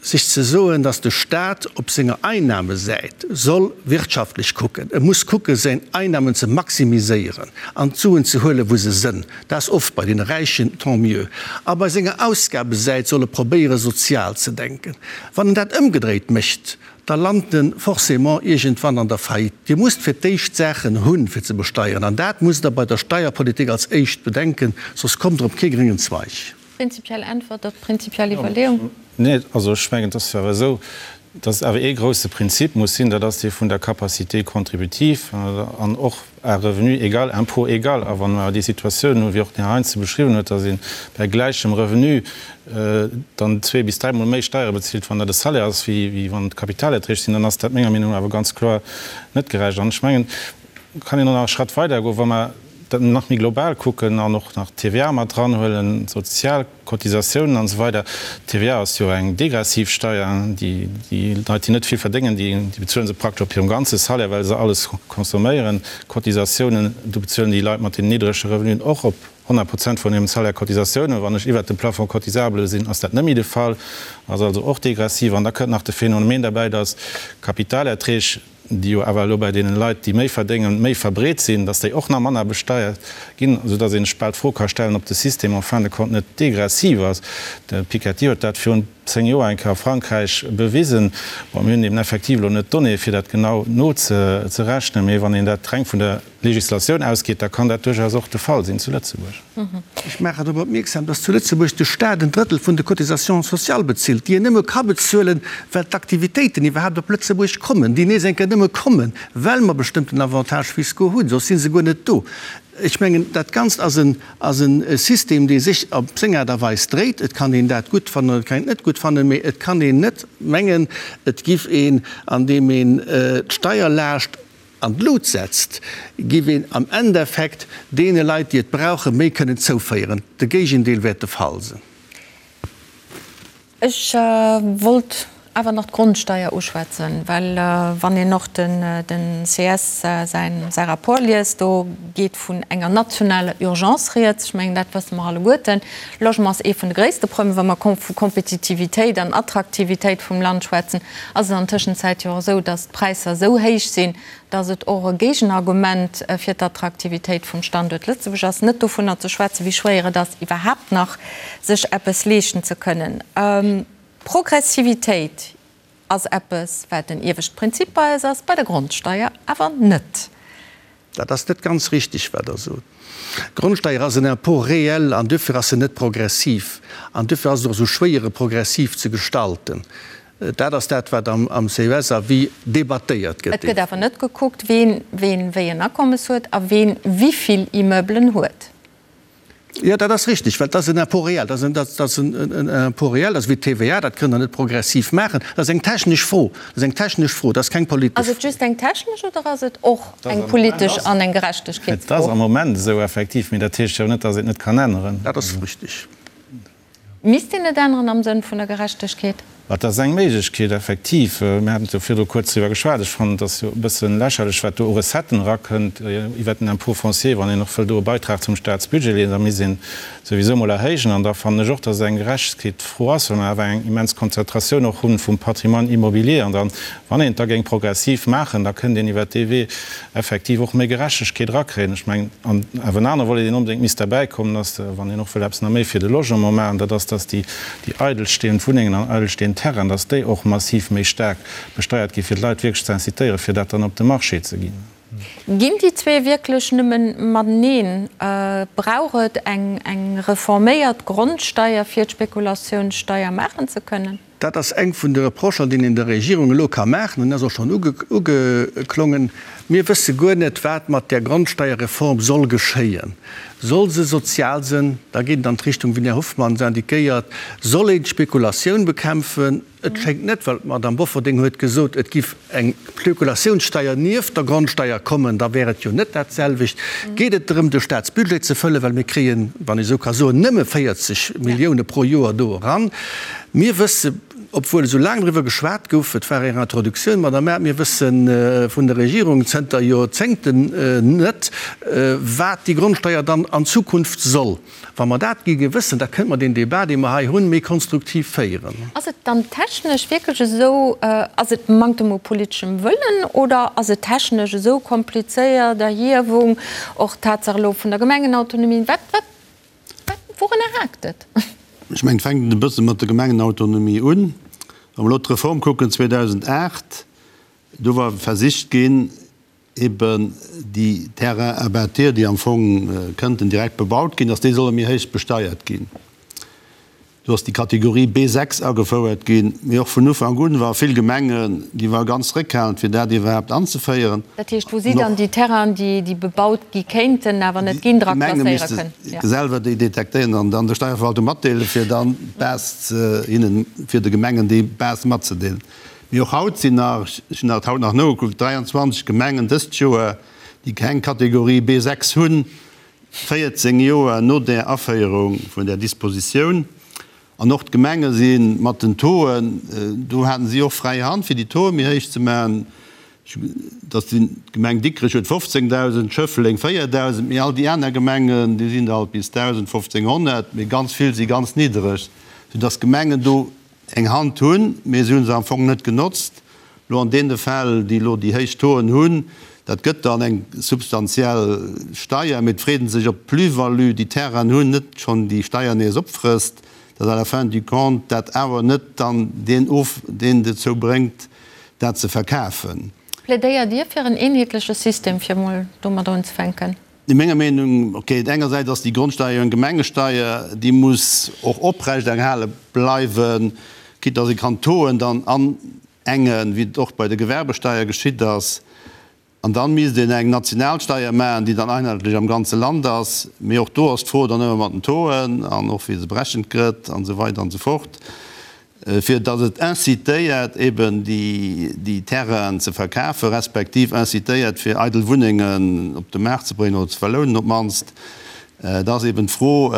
sech ze soen, datt de Stat op senger Einnahmesäit soll wirtschaftlech kucken, e muss kucke seng Einnahmen ze maximiséieren an d'Suen ze huelen, wou se sënn, dat ass oft bei deene Räichen, tant mieux, a bei senger Ausgabesäit soll e probéiere sozial ze denken. Wann en dat ëmgedréit mécht, da lant en forcément iergendwann an der Faillite. Dir musst fir d'éischt Saachen hunn, fir ze besteieren, an dat musst Der bei der Steierpolitik als éischt bedenken, soss kommt Der op kee gréngen Zweig. Prinzipiell Äntwert op prinzipiell Iwwerleeung. Nee, also ech mengen, et ass jo awer esou, dass awer ee grouse Prinzip muss sinn, dat ass dee vun der Capacité contributive an och à revenu égal, impôt égal. A wa mer déi Situatioun hunn, wéi och den Här Heintze beschriwwen huet, dass ee bei gläichem Revenu dann zwee bis dräimol méi Steiere bezilt, wann dat e Salaire ass, wéi wann et Kapitalerträg sinn, dann ass dat menger Meenung no awer ganz kloer net gerecht. An ech mengen, kann een och nach e Schratt weidergoen, wa mer. dat nach méi global kucken an och nach d'TVA mat dranhuelen, d'sozial Cotisatiounen an esou weider. D'TVA ass jo eng degressiv Steier. Déi Leit, déi net vill verdéngen, déi bezuele se praktesch op hirem ganze Salaire, well se alles consomméieren. Cotisatiounen, do bezuelen déi Leit mat den niddrege Revenuen och op 100 Prozent vun hirem Salaire Cotisatiounen. Wann ech iwwert dem Plafond cotisable sinn, ass dat net méi de Fall, ass also och degressiv. An da kënnt nach de Phänomen derbäi, dass Kapitalerträg, déi jo awer elo bei deenen Leit, déi méi verdéngen, méi verbreet sinn, dass déi och nach manner besteiert ginn, soudass een sech bal d'Fro ka stellen, ob de System en fin de compte net degressiv ass. De Piketty huet dat virun 10 Joer eng Kéier a Frankräich bewisen. Bon, mir hunn eben effektiv elo net d'Donnéeë fir dat genau nozerechnen, mee wann een dat reng vun der Legislatioun ausgeet, da kann dat duerchaus och de Fall sinn zu Lëtzebuerg. Ech maachen drop opmierksam, dass zu Lëtzebuerg de Stat en Drëttel vun de Cotisations sociales bezilt, déi en nëmme ka bezuelen, well d'Aktivitéiten iwwerhaapt op Lëtzebuerg kommen, déi nees eng Kéier nëmme kommen, well mer bestëmmten Avantages fiscaux hunn, soss si se guer net do. Ech mengen, dat Ganzt ass en, ass e System, dee sech op seng Aart a Weis dréit. Et kann een dat gutt fannen oder et kann een et net gutt fannen, mee et kann een net mengen, et giff een, andeem een d'Steierlaascht an d'Lut setzt, giff een am Endeffekt deene Leit, déi et brauchen, méi kënnen zouféieren. De Géigendeel wäert de Fall sinn. Ech wollt awer nach d'Grondsteier uschwätzen, well wann een och den ces säi Rapport liest, do geet vun enger nationaler Urgence rieds. Ech mengen, dat wësse mer alleguerten. Logement ass ee vun de gréisste Problemer, wa mer vu Kompetitivitéit an Attraktivitéit vum Land schwätzen. Ass et an Tëschenzäit jo och esou, datt d'Präisser esou héich sinn, datt et och e Géigenargument fir d'Attraktivitéit vum Standuert Lëtzebuerg ass, net dovunner ze schwätzen, wéi schwéier et ass, iwwerhaapt nach sech eppes leeschten ze kënnen. Progressivitéit ass eppes, wat en iewescht Prinzip bei eis ass, bei der Grondsteier awer net. Dat ass net ganz richtig, wat Der sot. D'Grondsteier ass en Impôt réel an duerfir ass se net progressiv. An duerfir ass et och esou schwéier, e progressiv ze gestalten. Dat ass dat, wat am CES-Avis debattéiert gëtt. Et gëtt awer net gekuckt, ween wéi en Akommes huet a ween wivill Immeublen huet. Jo, dat ass richtig, well dat ass en Impôt réel. Dat ass en Impôt réel, dat ass wéi d'TVA, dat kënnt Der net progressiv maachen. Dat ass eng technesch Fro. Dat ass eng technesch Fro, dat ass keng politesch Fro. Ass et just eng technesch oder ass et och eng politesch an eng Gerechtegkeetsfro? Et ass am Moment esou, effektiv, mee dat heescht jo net, datt een et net kann änneren. Dat ass richtig. Misst een et änneren am Sënn vun der Gerechtegkeet? Et ass eng Méiglechkeet, effektiv. Mir haten jo virdru kuerz driwwer geschwat. Ech fannen, et ass jo e bësse lächerlech, wat do u Recetten erakënnt iwwert den Impôt foncier. Wann een och wëll do e Beitrag zum Staatsbudget leeën, da misst een souwisou emol erhéijen. An da fannen ech och, dass et eng Gerechtegkeetsfro ass, well mer awer eng immens Konzentratioun och hu vum Patrimoine immobilier. An dann, wann een et da géing progressiv maachen, da kënnt een iwwert dee Wee effektiv och méi Gerechtegkeet erakréien. Ech mengen, an awer en anere Volet, deen onbedéngt misst derbäikommen, ass, wann een och wëll eppes nach méi fir de Logement maachen, dat ass, dass déi, déi eidelstehend Wunnengen an eidelstehend Terrainen, dass déi och massiv méi staark besteiert ginn, fir d'Leit wierklech ze incitéieren, fir dat dann op de Marché ze ginn. Ginn déi zwee wierklech nëmmen mateneen? Brauch et eng, eng reforméiert Grondsteier, fir d'Spekulatiounssteier maachen ze kënnen? Dat ass eng vun de Reprochen, déi een der Regierung elo ka maachen, an ass och schonn ugeklongen, Mir wësse guer net, wat mat där Grondsteierreform soll geschéien. Soll se sozial sënn? Da geet et an d'Richtung, wéi den Här Hoffmann se indiquéiert. Soll een d'Spekulatioun bekämpfen? Et schéngt net, well d'Madame Bofferding huet gesot, et giff eng Spekulatiounssteier nieft der Grondsteier kommen, da wär et jo net dat selwecht. Geet et drëm, de Staatsbudget ze fëllen, well mir kréien, wann ee sou ka soen, nëmme 40 Millioune pro Joer do eran. Mir wësse, obwuel esou laang driwwer geschwat gouf, et war Är Introduktioun, Madame Err, mir wësse vun der Regierung zënter Joerzéngten net, wat déi Grondsteier dann an Zukunft soll. Wa mer dat géinge wëssen, da kënnte mer deen Débat, dee mer hei hunn, méi konstruktiv féieren. Ass et dann technesch wierklech esou, ass et Manktem u politeschem Wëllen oder ass et technesch esou komplizéiert, Erhiewung, och d'Tatsaach elo vun der Gemengenautonomie, wat, wat, wat, wourunner haakt et? Ech mengen, et fänkt e bësse mat der Gemengenautonomie un. Wa mer elo d'Reform kucken 2008, do war versicht ginn, eben déi Terrains à bâtir, déi am Fong kënnten direkt bebaut ginn, dass déi solle méi héich besteiert ginn. Do ass déi Kategorie B6 agefouert ginn. Mee och vun Ufank un ware vill Gemengen, déi ware ganz zréckhalend, fir dat iwwerhaapt anzeféieren. Dat heescht, wou si dann déi Terrainen, déi bebaut gi kéinten, awer net ginn, dra klasséiere kënnen? Déi Gemenge misste selwer déi detektéieren an dann der Steierverwaltung matdeelen, fir dann d'Base hinnen, fir de Gemengen déi Base matzedeelen. Mee och haut sinn nach, ech hunn dat haut nach nogekuckt, 23 Gemengen dëst Joer, déi keng Kategorie B6 hunn. 14 Joer no där Aféierung vun där Dispositioun. An och d'Gemenge si mat den Tauxen, do haten si och fräi Hand, fir déi Tauxe méi héich ze maachen. Dass déi Gemeng Dikrech huet 15.000, Schëffleng 4.000, mee all déi aner Gemengen, déi sinn der alt bis 1.000, 1.500, mee ganz vill si ganz niddereg, soudass d'Gemengen do eng Hand hunn, mee se hu se am Fong net genotzt. Elo an deene Fäll, déi elo déi héich Tauxen hunn, dat gëtt dann eng substantiell Steier, mee et freet ee sech, ob d'Plus-value, déi d'Terrainen hunn, net schonn déi Steier nees opfrësst, dass à la fin du compte dat awer net dann deen of, deen dozou bréngt, dat ze verkafen. Plädéiert Dir fir en eenheetleche System, fir emol domadder unzefänken? No menger Meenung, okay, engersäits ass déi Grondsteier jo eng Gemengesteier, déi muss och oprechterhale bleiwen, quitte dass ee kann d'Tauxen dann anengen, wéi et och bei der Gewerbesteier geschitt ass. An dann misst een eng national Steier maachen, déi dann einheetlech am ganze Land ass. Mee och do ass d'Fro dann ëmmer mat den Tauxen an och wéi se berechent gëtt an esou weider an esou fort, fir datt et incitéiert eben déi Terrainen ze verkafen, respektiv incitéiert fir eidel Wunnengen op de Maart ze bréngen oder ze verlounen op d'mannst. Et ass eben d'Fro,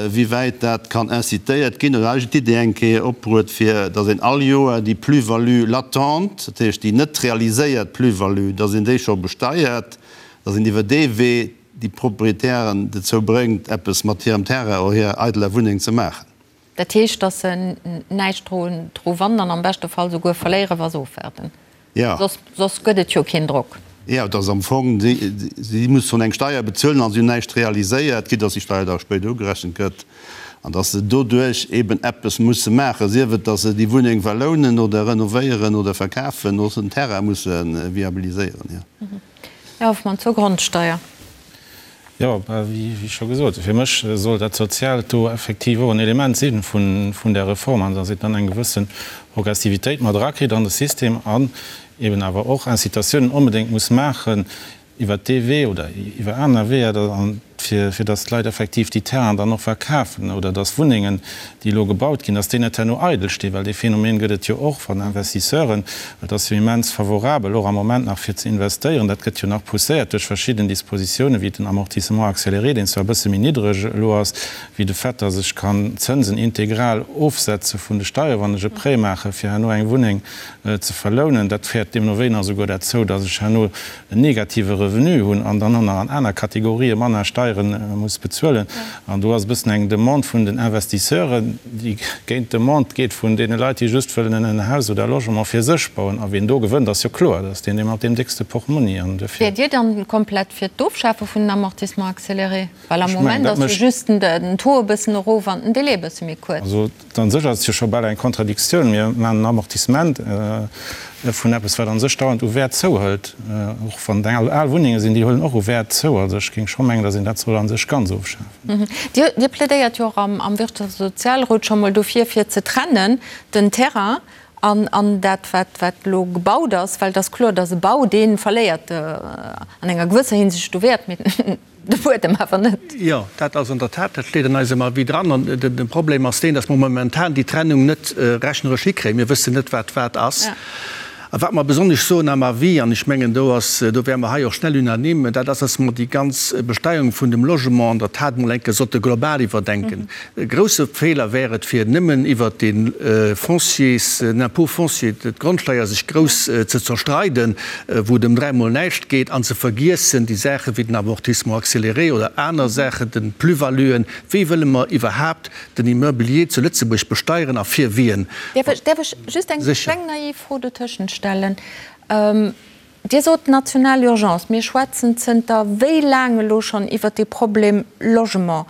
wéi wäit dat kann incitéiert ginn. Oder eigentlech d'Idee eng Kéier opbruet, fir datt een all Joer déi Plus-value latente, dat heescht déi net realiséiert Plus-value, datt een déi scho besteiert, datt een iwwer dee Wee déi Proprietären dozou bréngt, eppes mat hirem Terrain oder hirer eideler Wunneng ze maachen. Dat heescht, datt se näischt dru wannen an am beschte Fall souguer verléieren, wa se ofwaarden. Jo. Soss gëtt et jo keen Drock. Jo, et ass am Fong, si mussen eng Steier bezuelen a si hunn näischt realiséiert, quitte datt déi Steier da spéider ugerechent gëtt, an datt se doduerch eben eppes musse maachen, sief et, datt se déi Wunneng verlounen oder renovéieren oder verkafen oder den Terrain musse viabiliséieren, jo. Här Hoffmann, zur Grondsteier. Jo, wéi scho gesot, fir mech soll dat Soziaalt do effektiv och en Element si vun där Reform, an datt een dann eng gewësse Progressivitéit mat erakritt an de System an eben awer och Incitatiounen onbedéngt muss maachen iwwert dee Wee oder iwwer aner Weeër, fir datt d'Leit effektiv déi Terrainen dann och verkafen oder datt Wunnengen, déi elo gebaut ginn, datt déi net herno eidel stinn, well dee Phänomen gëtt et jo och van Investisseuren. Et ass jo immens favorabel och am Moment nach fir ze investéieren. Dat gëtt jo nach pousséiert duerch verschidden Dispositiounen, wéi den Amortissement accéléré, deen zwar e bësse méi niddreg elo ass, wéi de Fait, datt ech kann d'Zënsen integral ofsetze vun de Steieren, wann ech e Prêt maache fir herno eng Wunneng ze verlounen. Dat féiert deemno wéi nach esouguer derzou, datt ech herno en negative Revenu hunn an dann och nach an aner Kategorië manner Steiere muss bezuelen. An do ass e bëssen eng Demande vun den Investisseuren, déi géint d'Demande geet vun deene Leit, déi just wëllen en Haus oder e Logement fir sech bauen. A wien do gewënnt, ass jo kloer, dat ass deen, dee mat deem déckste Portmonni. An duerfir. Wäert Dir dann komplett fir d'Ofschafe vun den Amortissements accélérés? Well am Moment ass jo just den Taux e bëssen erof an den Délai e bësse méi kuerz. Also An sech ass et jo scho bal eng Kontradiktioun. Mir maachen en Amortissement vun eppes, wat a sech dauernd u Wäert zouhëlt. Och wann et eng al Wunnenge sinn, déi huelen och u Wäert zou. Also ech géing scho mengen, datt een dat soll a sech ganz ofschafen. Dir plädéiert jo och am Wirtschafts a Sozialrot scho mol dofir, fir ze trennen den Terrain an dat, wat elo gebaut ass. Well et ass kloer, datt e Bau, dee verléiert an enger gewësser Hinsicht u Wäert. Mee De Buedem awer net. Jo, dat ass an der Tat, dat steet an eisem Avis dran. An de Problem ass deen, datt mer momentan déi Trennung net rechneresch hikréien. Mir wëssen net, wat wat ass. A wat mer besonnesch soen am Avis, an ech mengen, do ass, do wäre mer hei och schnell unanime, dat ass, datt mer déi ganz Besteierung vun dem Logement an der Tat emol eng Kéier sollte global iwwerdenken. E grousse Feeler wär et, fir nëmmen iwwert de Fonciers, den Impôt foncier, d'Grondsteier sech grouss ze zerstreiden, wou et ëm dräimol näischt geet, an ze vergiessen déi Saache wéi den Amortissement accéléré oder aner Saachen, de Plus-valuen. Wéi wëlle mer iwwerhaapt den Immobilier zu Lëtzebuerg besteieren a fir wien? Däerf ech just eng kleng naiv Fro dotëschent stellen? Dir sot national Urgence. Mir schwätzen zënter wéi laang elo schonn iwwert dee Problem Logement.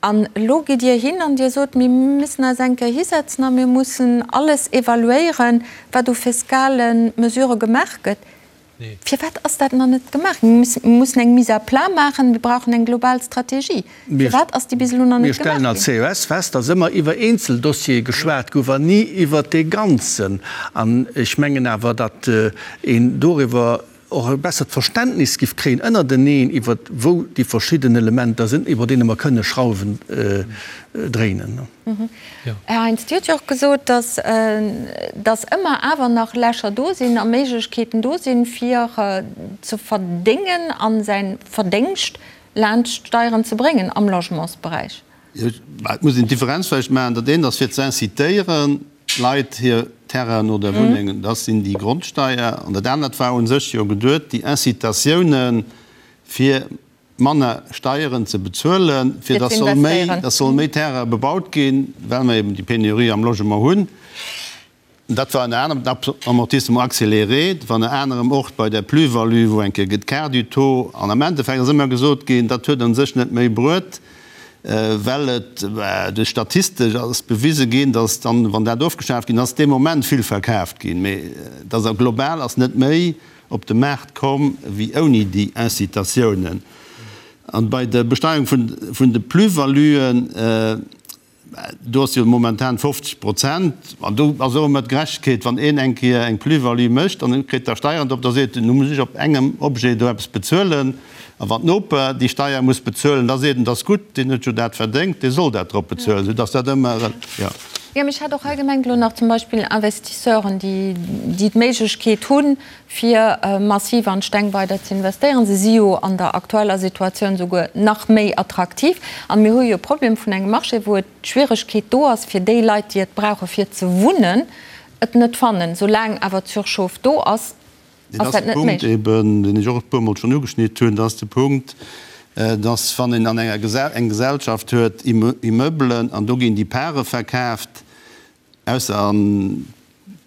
An elo gitt Dir hin an Dir sot, mir müssen eis eng Kéier hisetzen a mir mussen alles evaluéieren, wat u fiskale Mesurë gemaach gëtt. Firwat ass dat nach net gemaach ginn? Mir mussen eng Mise à plat maachen, mir brauchen eng global Strategie. Firwat ass déi bis elo nach net gemaach ginn? Mir stellen als CES fest, dass ëmmer iwwer eenzel Dossiere geschwat gouf an ni iwwert dee Ganzen. An ech mengen awer, datt een doriwwer och e bessert Verständnis giff kréien ënnerteneen iwwert wou déi verschidden Elementer sinn, iwwer deene mer kënne Schrauwen dréinen. Här Heintz, Dir hutt jo och gesot, datt datt ëmmer awer nach Lächer do sinn a Méiglechkeeten do sinn, fir ze verdéngen a säi Verdéngscht. Laanscht d'Steieren ze bréngen am Logementsberäich. Et muss een d'Differenz vläicht maachen, Dat eent ass fir ze incitéieren d'Leit hir Terrainen oder Wunnengen, dat sinn déi Grondsteier. An dat anert war u sech jo geduet, déi Incitatiounen, fir manner Steieren ze bezuelen, fir datt soll méi, datt soll méi Terraine bebaut ginn, well mer eben déi Penurie am Logement hunn. Dat war ënner anerem den Amortissement accéléré, dat war ënner anerem och bei der Plus-value, wou eng Kéier gëtt quart du taux. An am Endeffekt ass ëmmer gesot ginn, dat huet a sech net méi bruet, well et duerch statistesch ass bewise ginn, datt dann, wann dat ofgeschaaft ginn ass, dee Moment vill verkaaft ginn, mee datt a global ass net méi op de Maart komm wéi ouni déi Incitatiounen. An bei der Besteierung vun de Plus-valuen, Do ass jo momentan 50 Prozent. An do ass och ëmmer d'Gerechtegkeet, wann een eng Kéier eng Plus-value mécht an en kritt da Steieren drop, da seet en, nu muss ech op engem Objet do eppes bezuelen. A wann d'Noper déi Steier muss bezuelen, da seet en, dat ass gutt, deen huet jo dat verdéngt, dee soll dat drop bezuelen, soudass dat ëmmer, jo. Jo, mee ech hat och hei gemengt elo nach zum Beispill Investisseuren, déi d'Méiglechkeet hunn, fir massiv an d'Steng weider ze investéieren. Se si jo an der aktueller Situatioun souguer nach méi attraktiv. An mir hu jo e Problem vun engem Marché, wou et d'Schwieregkeet do ass, fir déi Leit, déi et brauche fir ze wunnen, et net fannen. Soulaang awer d'Surchauffe do ass, ass dat net méiglech. Dat ass de Punkt eben, deen ech och e puermol schonn ugeschnitt hunn. Dat ass de Punkt, dass wann een an enger eng Gesellschaft huet, Immeublen, an do ginn déi Pare verkaaft, Ausser a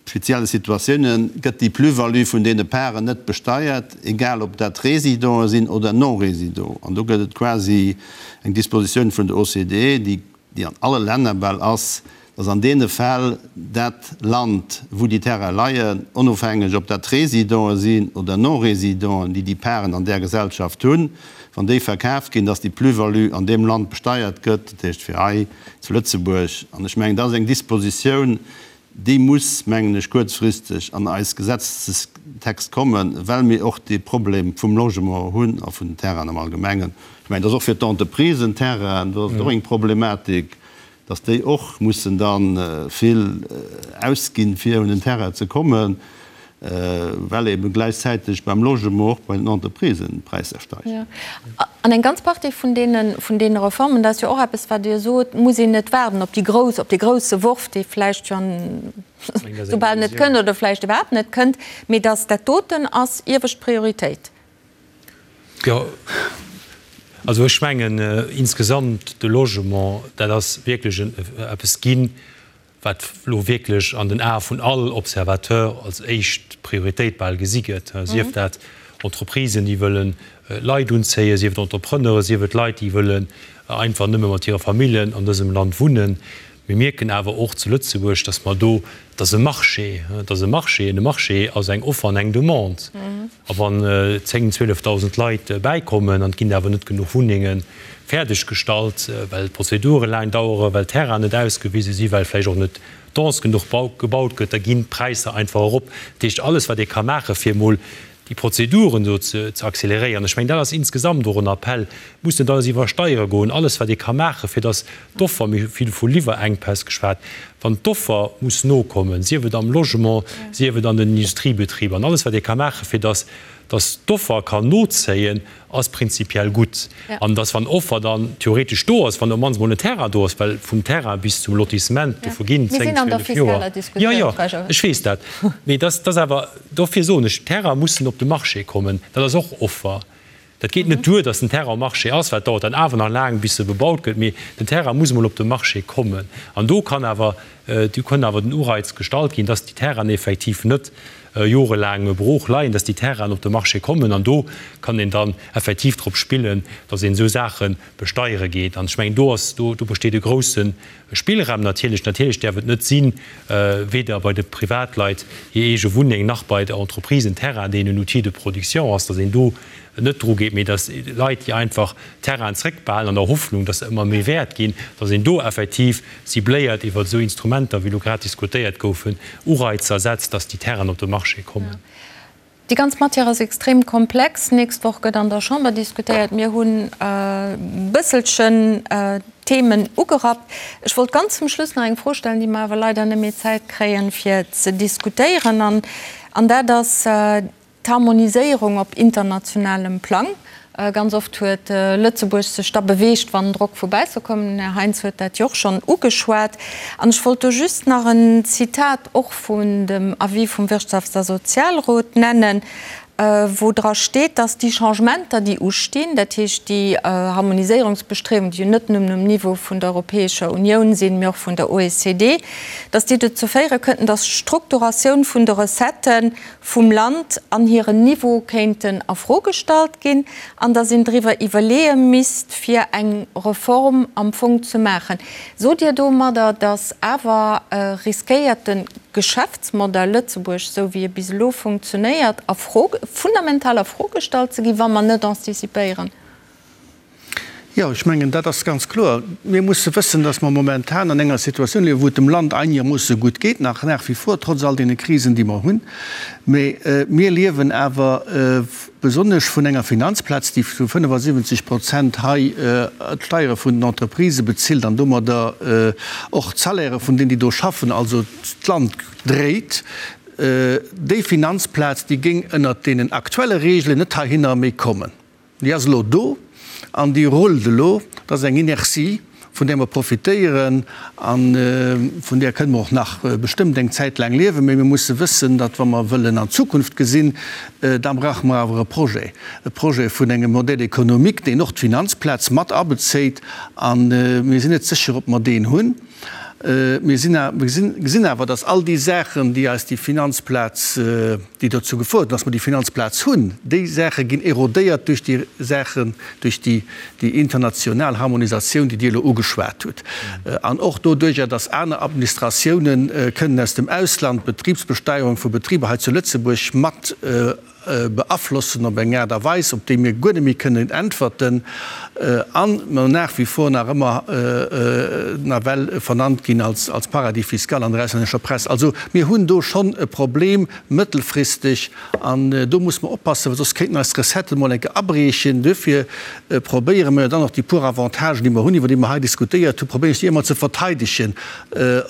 spezielle Situatiounen gëtt déi Plus-value vun deene Paren net besteiert, egal ob dat Résidenten sinn oder Non-Résidenten. An do gëtt et quasi eng Dispositioun vun der OCDE, déi, déi an alle Länner bal ass, dass an deene Fäll dat Land, wou déi Terraine leien, onofhängeg ob dat Résidenten sinn oder Non-Résidenten, déi déi Paren an där Gesellschaft hunn, wann déi verkaaft ginn, dass déi Plus-value an deem Land besteiert gëtt, dat heescht fir hei zu Lëtzebuerg. An ech mengen, dat ass eng Dispositioun, déi muss, mengen ech, kuerzfristeg an eis Gesetzestext kommen, well mir och dee Problem vum Logement hunn a vun den Terrainen am Allgemengen. Ech mengen, dat ass och fir d'Entreprisen, Terrainen, do ass et och eng Problematik, dass déi och mussen da vill ausginn, fir un en Terrain ze kommen. Well ebe gläichzäiteg beim Logement och bei den Entreprisen d'Präisser steigen. An eng ganz Partie vun deene, vun deene Reformen, dat ass jo och eppes, wat Dir sot, muss een net waarden op déi grouss, op dee grousse Worf, dee vläicht jo soubal net kënnt oder vläicht iwwerhaapt net kënnt, mee datt dat doten ass iewescht Prioritéit. Jo, also ech mengen insgesamt de Logement, dat ass wierklech eppes ginn, wat elo wierklech an den Ae vun all Observateur als éischt Prioritéit bal gesi gëtt, sief dat Entreprisen, déi wëlle Leit unzéien, sief et Entrepreneuren, sief et Leit, déi wëllen einfach nëmme mat hire Familljen an dësem Land wunnen. Mir mierken awer och zu Lëtzebuerg, dass mer do, et ass e Marché, et ass e Marché, an e Marché ass eng Offer an eng Demande. A wann 10, 12.000 Leit bäikommen an et ginn awer net genuch Wunnenge fäerdeg gestallt, well d'Prozedure laang daueren, well d'Terrainen net ausgewise sinn, well vläicht och net dense genuch gebaut gëtt, da ginn d'Präisser einfach erop. Dat heescht, alles wat ee ka maachen, fir emol déi Prozeduren do ze acceleréieren, ech mengen, dat ass insgesamt och en Appell, muss net alles iwwer Steiere goen, alles wat ee ka maachen, fir datt d'Offer, mir hu vill vu Liwwerenkpäss geschwat, wann d'Offer muss nokommen, sief et am Logement, sief et an den Industriebetriber, an alles wat ee ka maachen, fir datt datt d'Offer kann nozéien, ass prinzipiell gutt. An datt wann Offer dann theoretesch do ass, wann op d'mannst emol en Terrain do ass, well vum Terrain bis zum Lotissement, do verginn 10, 12 Joer. Jo, jo, ech weess dat. Mee datt ass awer, dofir soen ech, d'Terraine mussen op de Marché kommen, dat ass och Offer. Dat geet net duer, datt den Terrain um Marché ass, well et dauert dann awer nach laang, bis e bebaut gëtt. Mee den Terrain muss emol op de Marché kommen. An do kann awer, do kann awer den Ureiz gestallt ginn, datt déi Terrainen effektiv net jorelaang brooch leien, datt déi Terrainen op de Marché kommen. An do kann een dann effektiv drop spillen, datt een esou Saache besteiere geet. An ech mengen, do ass, do besteet e grousse Spillraum natierlech. Natierlech däerf et net sinn, weder bei de Privatleit hir eege Wunneng nach bei der Entreprise en Terrain, deen en Outil de production ass, datt een do net dru geet, mee datt Leit, déi einfach Terrainen zréckbehalen an der Hoffnung, datt se ëmmer méi wäert ginn, datt een do effektiv cibléiert iwwer esou Instrumenter, wéi elo grad diskutéiert goufen, Ureizer setzt, datt déi Terrainen op de Marché kommen. Déi ganz Matière ass extrem komplex. D'nächst Woch gëtt an der Chamber diskutéiert. Mir hunn e bësselchen d'Themen ugerappt. Ech wollt ganz zum Schluss nach eng Fro stellen, déi mer awer leider net méi Zäit kréien, fir ze diskutéieren, an dat ass d'Harmoniséierung op internationalem Plang. Ganz oft huet Lëtzebuerg sech da beweegt, wann Drock vu bausse koum. Den Här Heintz huet dat jo och schonn ugeschwat. An ech wollt do just nach en Zitat och vun dem Avis vum Wirtschafts a Sozialrot nennen, wou dra steet, dass déi Changementer, déi ustinn, dat heescht déi Harmoniséierungsbestriewungen, déi jo net nëmmen um Niveau vun der Europäescher Unioun sinn, mee och vun der OECD, dass déi dozou féiere kënnten, dass d'Strukturatioun vun de Recettë vum Land an hiren Niveau kéinten a Fro gestallt ginn an dass een driwwer iwwerleeë misst, fir eng Reform am Fong ze maachen. Sot Dir domadder, dass awer riskéiert de Geschäftsmodell Lëtzebuerg, esou wéi e bis elo funktionéiert, a Fro, fundamental a Fro gestallt ze ginn, wa mer net anticipéieren? Jo, ech mengen, dat ass ganz kloer. Mir musse wëssen, dass mer momentan an enger Situatioun liewen, wou et dem Land einegermoosse gutt geet, nach nach wie vor, trotz all deene Krisen, déi mer hunn. Mee mir liewen awer besonnesch vun enger Finanzplaz, déi zu 75 Prozent hei d'Steiere vun den Entreprisë bezilt an domadder och d'Salairë vun deenen, déi do schaffen, also d'Land dréit. Déi Finanzplaz, déi géing ënnert deenen aktuelle Regeln net heihinner méi kommen. Déi ass elo do an déi rullt elo. Dat ass eng Inertie, vun där mer profitéieren a vun där kënne mer och nach bestëmmt eng Zäit laang liewen. Mee mir musse wëssen, datt wa mer wëllen an d'Zukunft gesinn, da brauche mer awer e Projet, e Projet vun engem Modèle économique, deen och d'Finanzplaz mat abezéit. A mir sinn net sécher, ob mer deen hunn. Mir gesinn awer, datt all déi Saachen, déi eis déi Finanzplaz, déi dozou gefouert hunn, datt mer déi Finanzplaz hunn, déi Saache ginn erodéiert duerch déi Saachen, duerch déi international Harmonisatioun, déi Dir elo ugeschwat hutt, an och doduerjer, datt aner Administratiounen kënnen aus dem Ausland d'Betribsbesteierung vu Betriber hei zu Lëtzebuerg mat beaflossen op eng Aart a Weis, op déi mir guer net méi kënnen äntwerten a mer nach wie vor nach ëmmer nawell vernannt ginn als Paradis fiscal an der auslännescher Press. Also mir hunn do schonn e Problem mëttelfristeg an do muss mer oppassen, well soss kéinten eis Recetten emol eng Kéier abriechen. Duerfir probéiere mer jo dann och déi puer Avantagen, déi mer hunn, iwwer déi mer hei diskutéiert hunn, probéieren ech déi ëmmer ze verteidegen,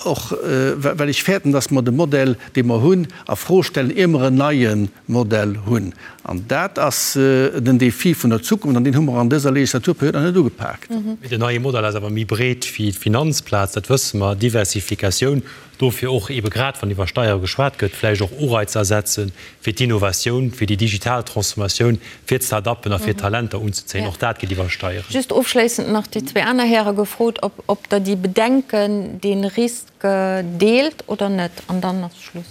och well ech fäerten, dass mer de Modell, dee mer hunn, a Fro stellen, ier mer en neie Modell hunn. An dat ass den Défi vun der Zukunft, an deen hu mer an dëser Legislaturperiod nach net ugepaakt. Mee den neie Modell ass awer méi breet wéi d'Finanzplaz, dat wësse mer, Diversifikatioun, dofir och eebe grad wann iwwer Steiere geschwat gëtt, vläicht och Ureizer setzen, fir d'Innovatioun, fir déi digital Transformatioun, fir d'Start-uppen a fir d'Talenter unzezéien. Och dat geet iwwer Steieren. Just ofschléissend nach déi zwee aner Häre gefrot, ob Der déi Bedenken, dee Risk, Deelt oder net? An dann ass Schluss.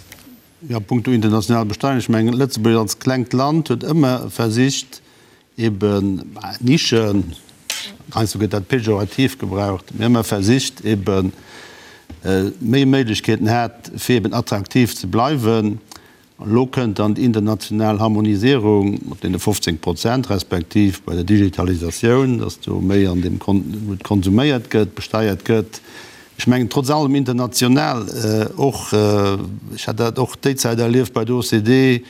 Jo, punkto international Besteierung, ech mengen, Lëtzebuerg als klengt Land huet ëmmer versicht, eben Nischen, heiansdo gëtt dat pejorativ gebraucht, mee ëmmer versicht, eben méi Méiglechkeeten hat, fir eben attraktiv ze bleiwen. Elo kënnt dann déi international Harmonisierung mat deene 15 Prozent, respektiv bei der Digitalisatioun, dass do méi an deem, wou et konsuméiert gëtt, besteiert gëtt. Ech mengen, trotz allem international och, ech hat dat och déi Zäit erlieft bei der OCDE,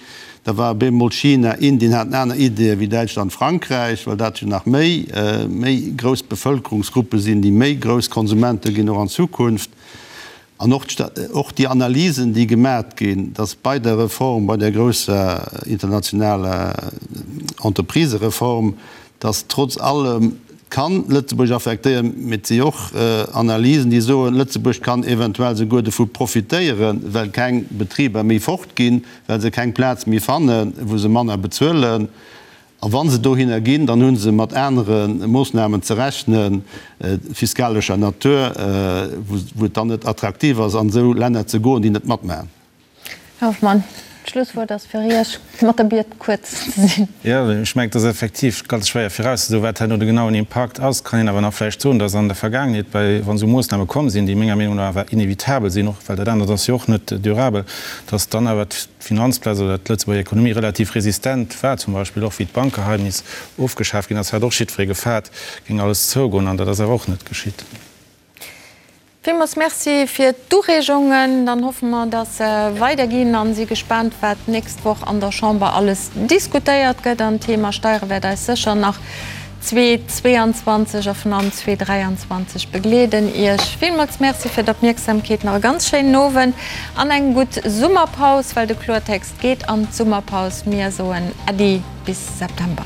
da war op eemol China, Indien haten aner Ideeë wéi Däitschland, Frankräich, well dat jo nach méi, méi grouss Bevëlkerungsgruppe sinn, déi méi grouss Konsumente ginn och an Zukunft. An och och déi Analysen, déi gemat ginn, dass bei der Reform, bei där grousser internationaler Entreprisereform, dass trotz allem, kann Lëtzebuerg affektéieren, mee et si och Analysen, déi soen, Lëtzebuerg kann eventuell souguer dovu profitéieren, well keng Betriber méi fortginn, well se keng Plaz méi fannen, wou se manner bezuelen. A wa se dohinner ginn, dann hu se mat anere Moossnamen ze rechnen, fiskalescher Natur, wou et dann net attraktiv ass, an esou Länner ze goen, déi net matmaachen. Här Hoffmann, d'Schlusswuert ass fir Iech, mat der Biet, kuerz ze sinn. Jo, ech mengen, et ass effektiv ganz schwéier virauszesoen, wat herno de genauen Impakt ass. Kann een awer nach vläicht soen, dass an der Vergaangenheet, bei, wa sou Moossname komm sinn, déi menger Meenung no awer inevitabel sinn, och well dat anert ass jo och net durabel, dass dann awer d'Finanzplaz oder d'Lëtzebuerger Ekonomie relativ resistent war, zum Beispill och wéi d'Bankgeheimnis ofgeschaf ginn ass, hat och jiddweree gefaart, géing alles zougoen, an dat ass awer och net geschitt. Villmools Merci fir d'Ureegungen. Dann hoffe mer, dass se weiderginn a si gespaant, wat d'nächst Woch an der Chamber alles diskutéiert gëtt. An d'Thema Steiere wäert eis sécher nach 2022 a vun allem 2023 begleeden. Iech villmools Merci fir d'Opmierksamkeet, nach e ganz schéinen Owend an eng gutt Summerpaus, well de Kloertext geet an d'Summerpaus. Mir soen Äddi bis September.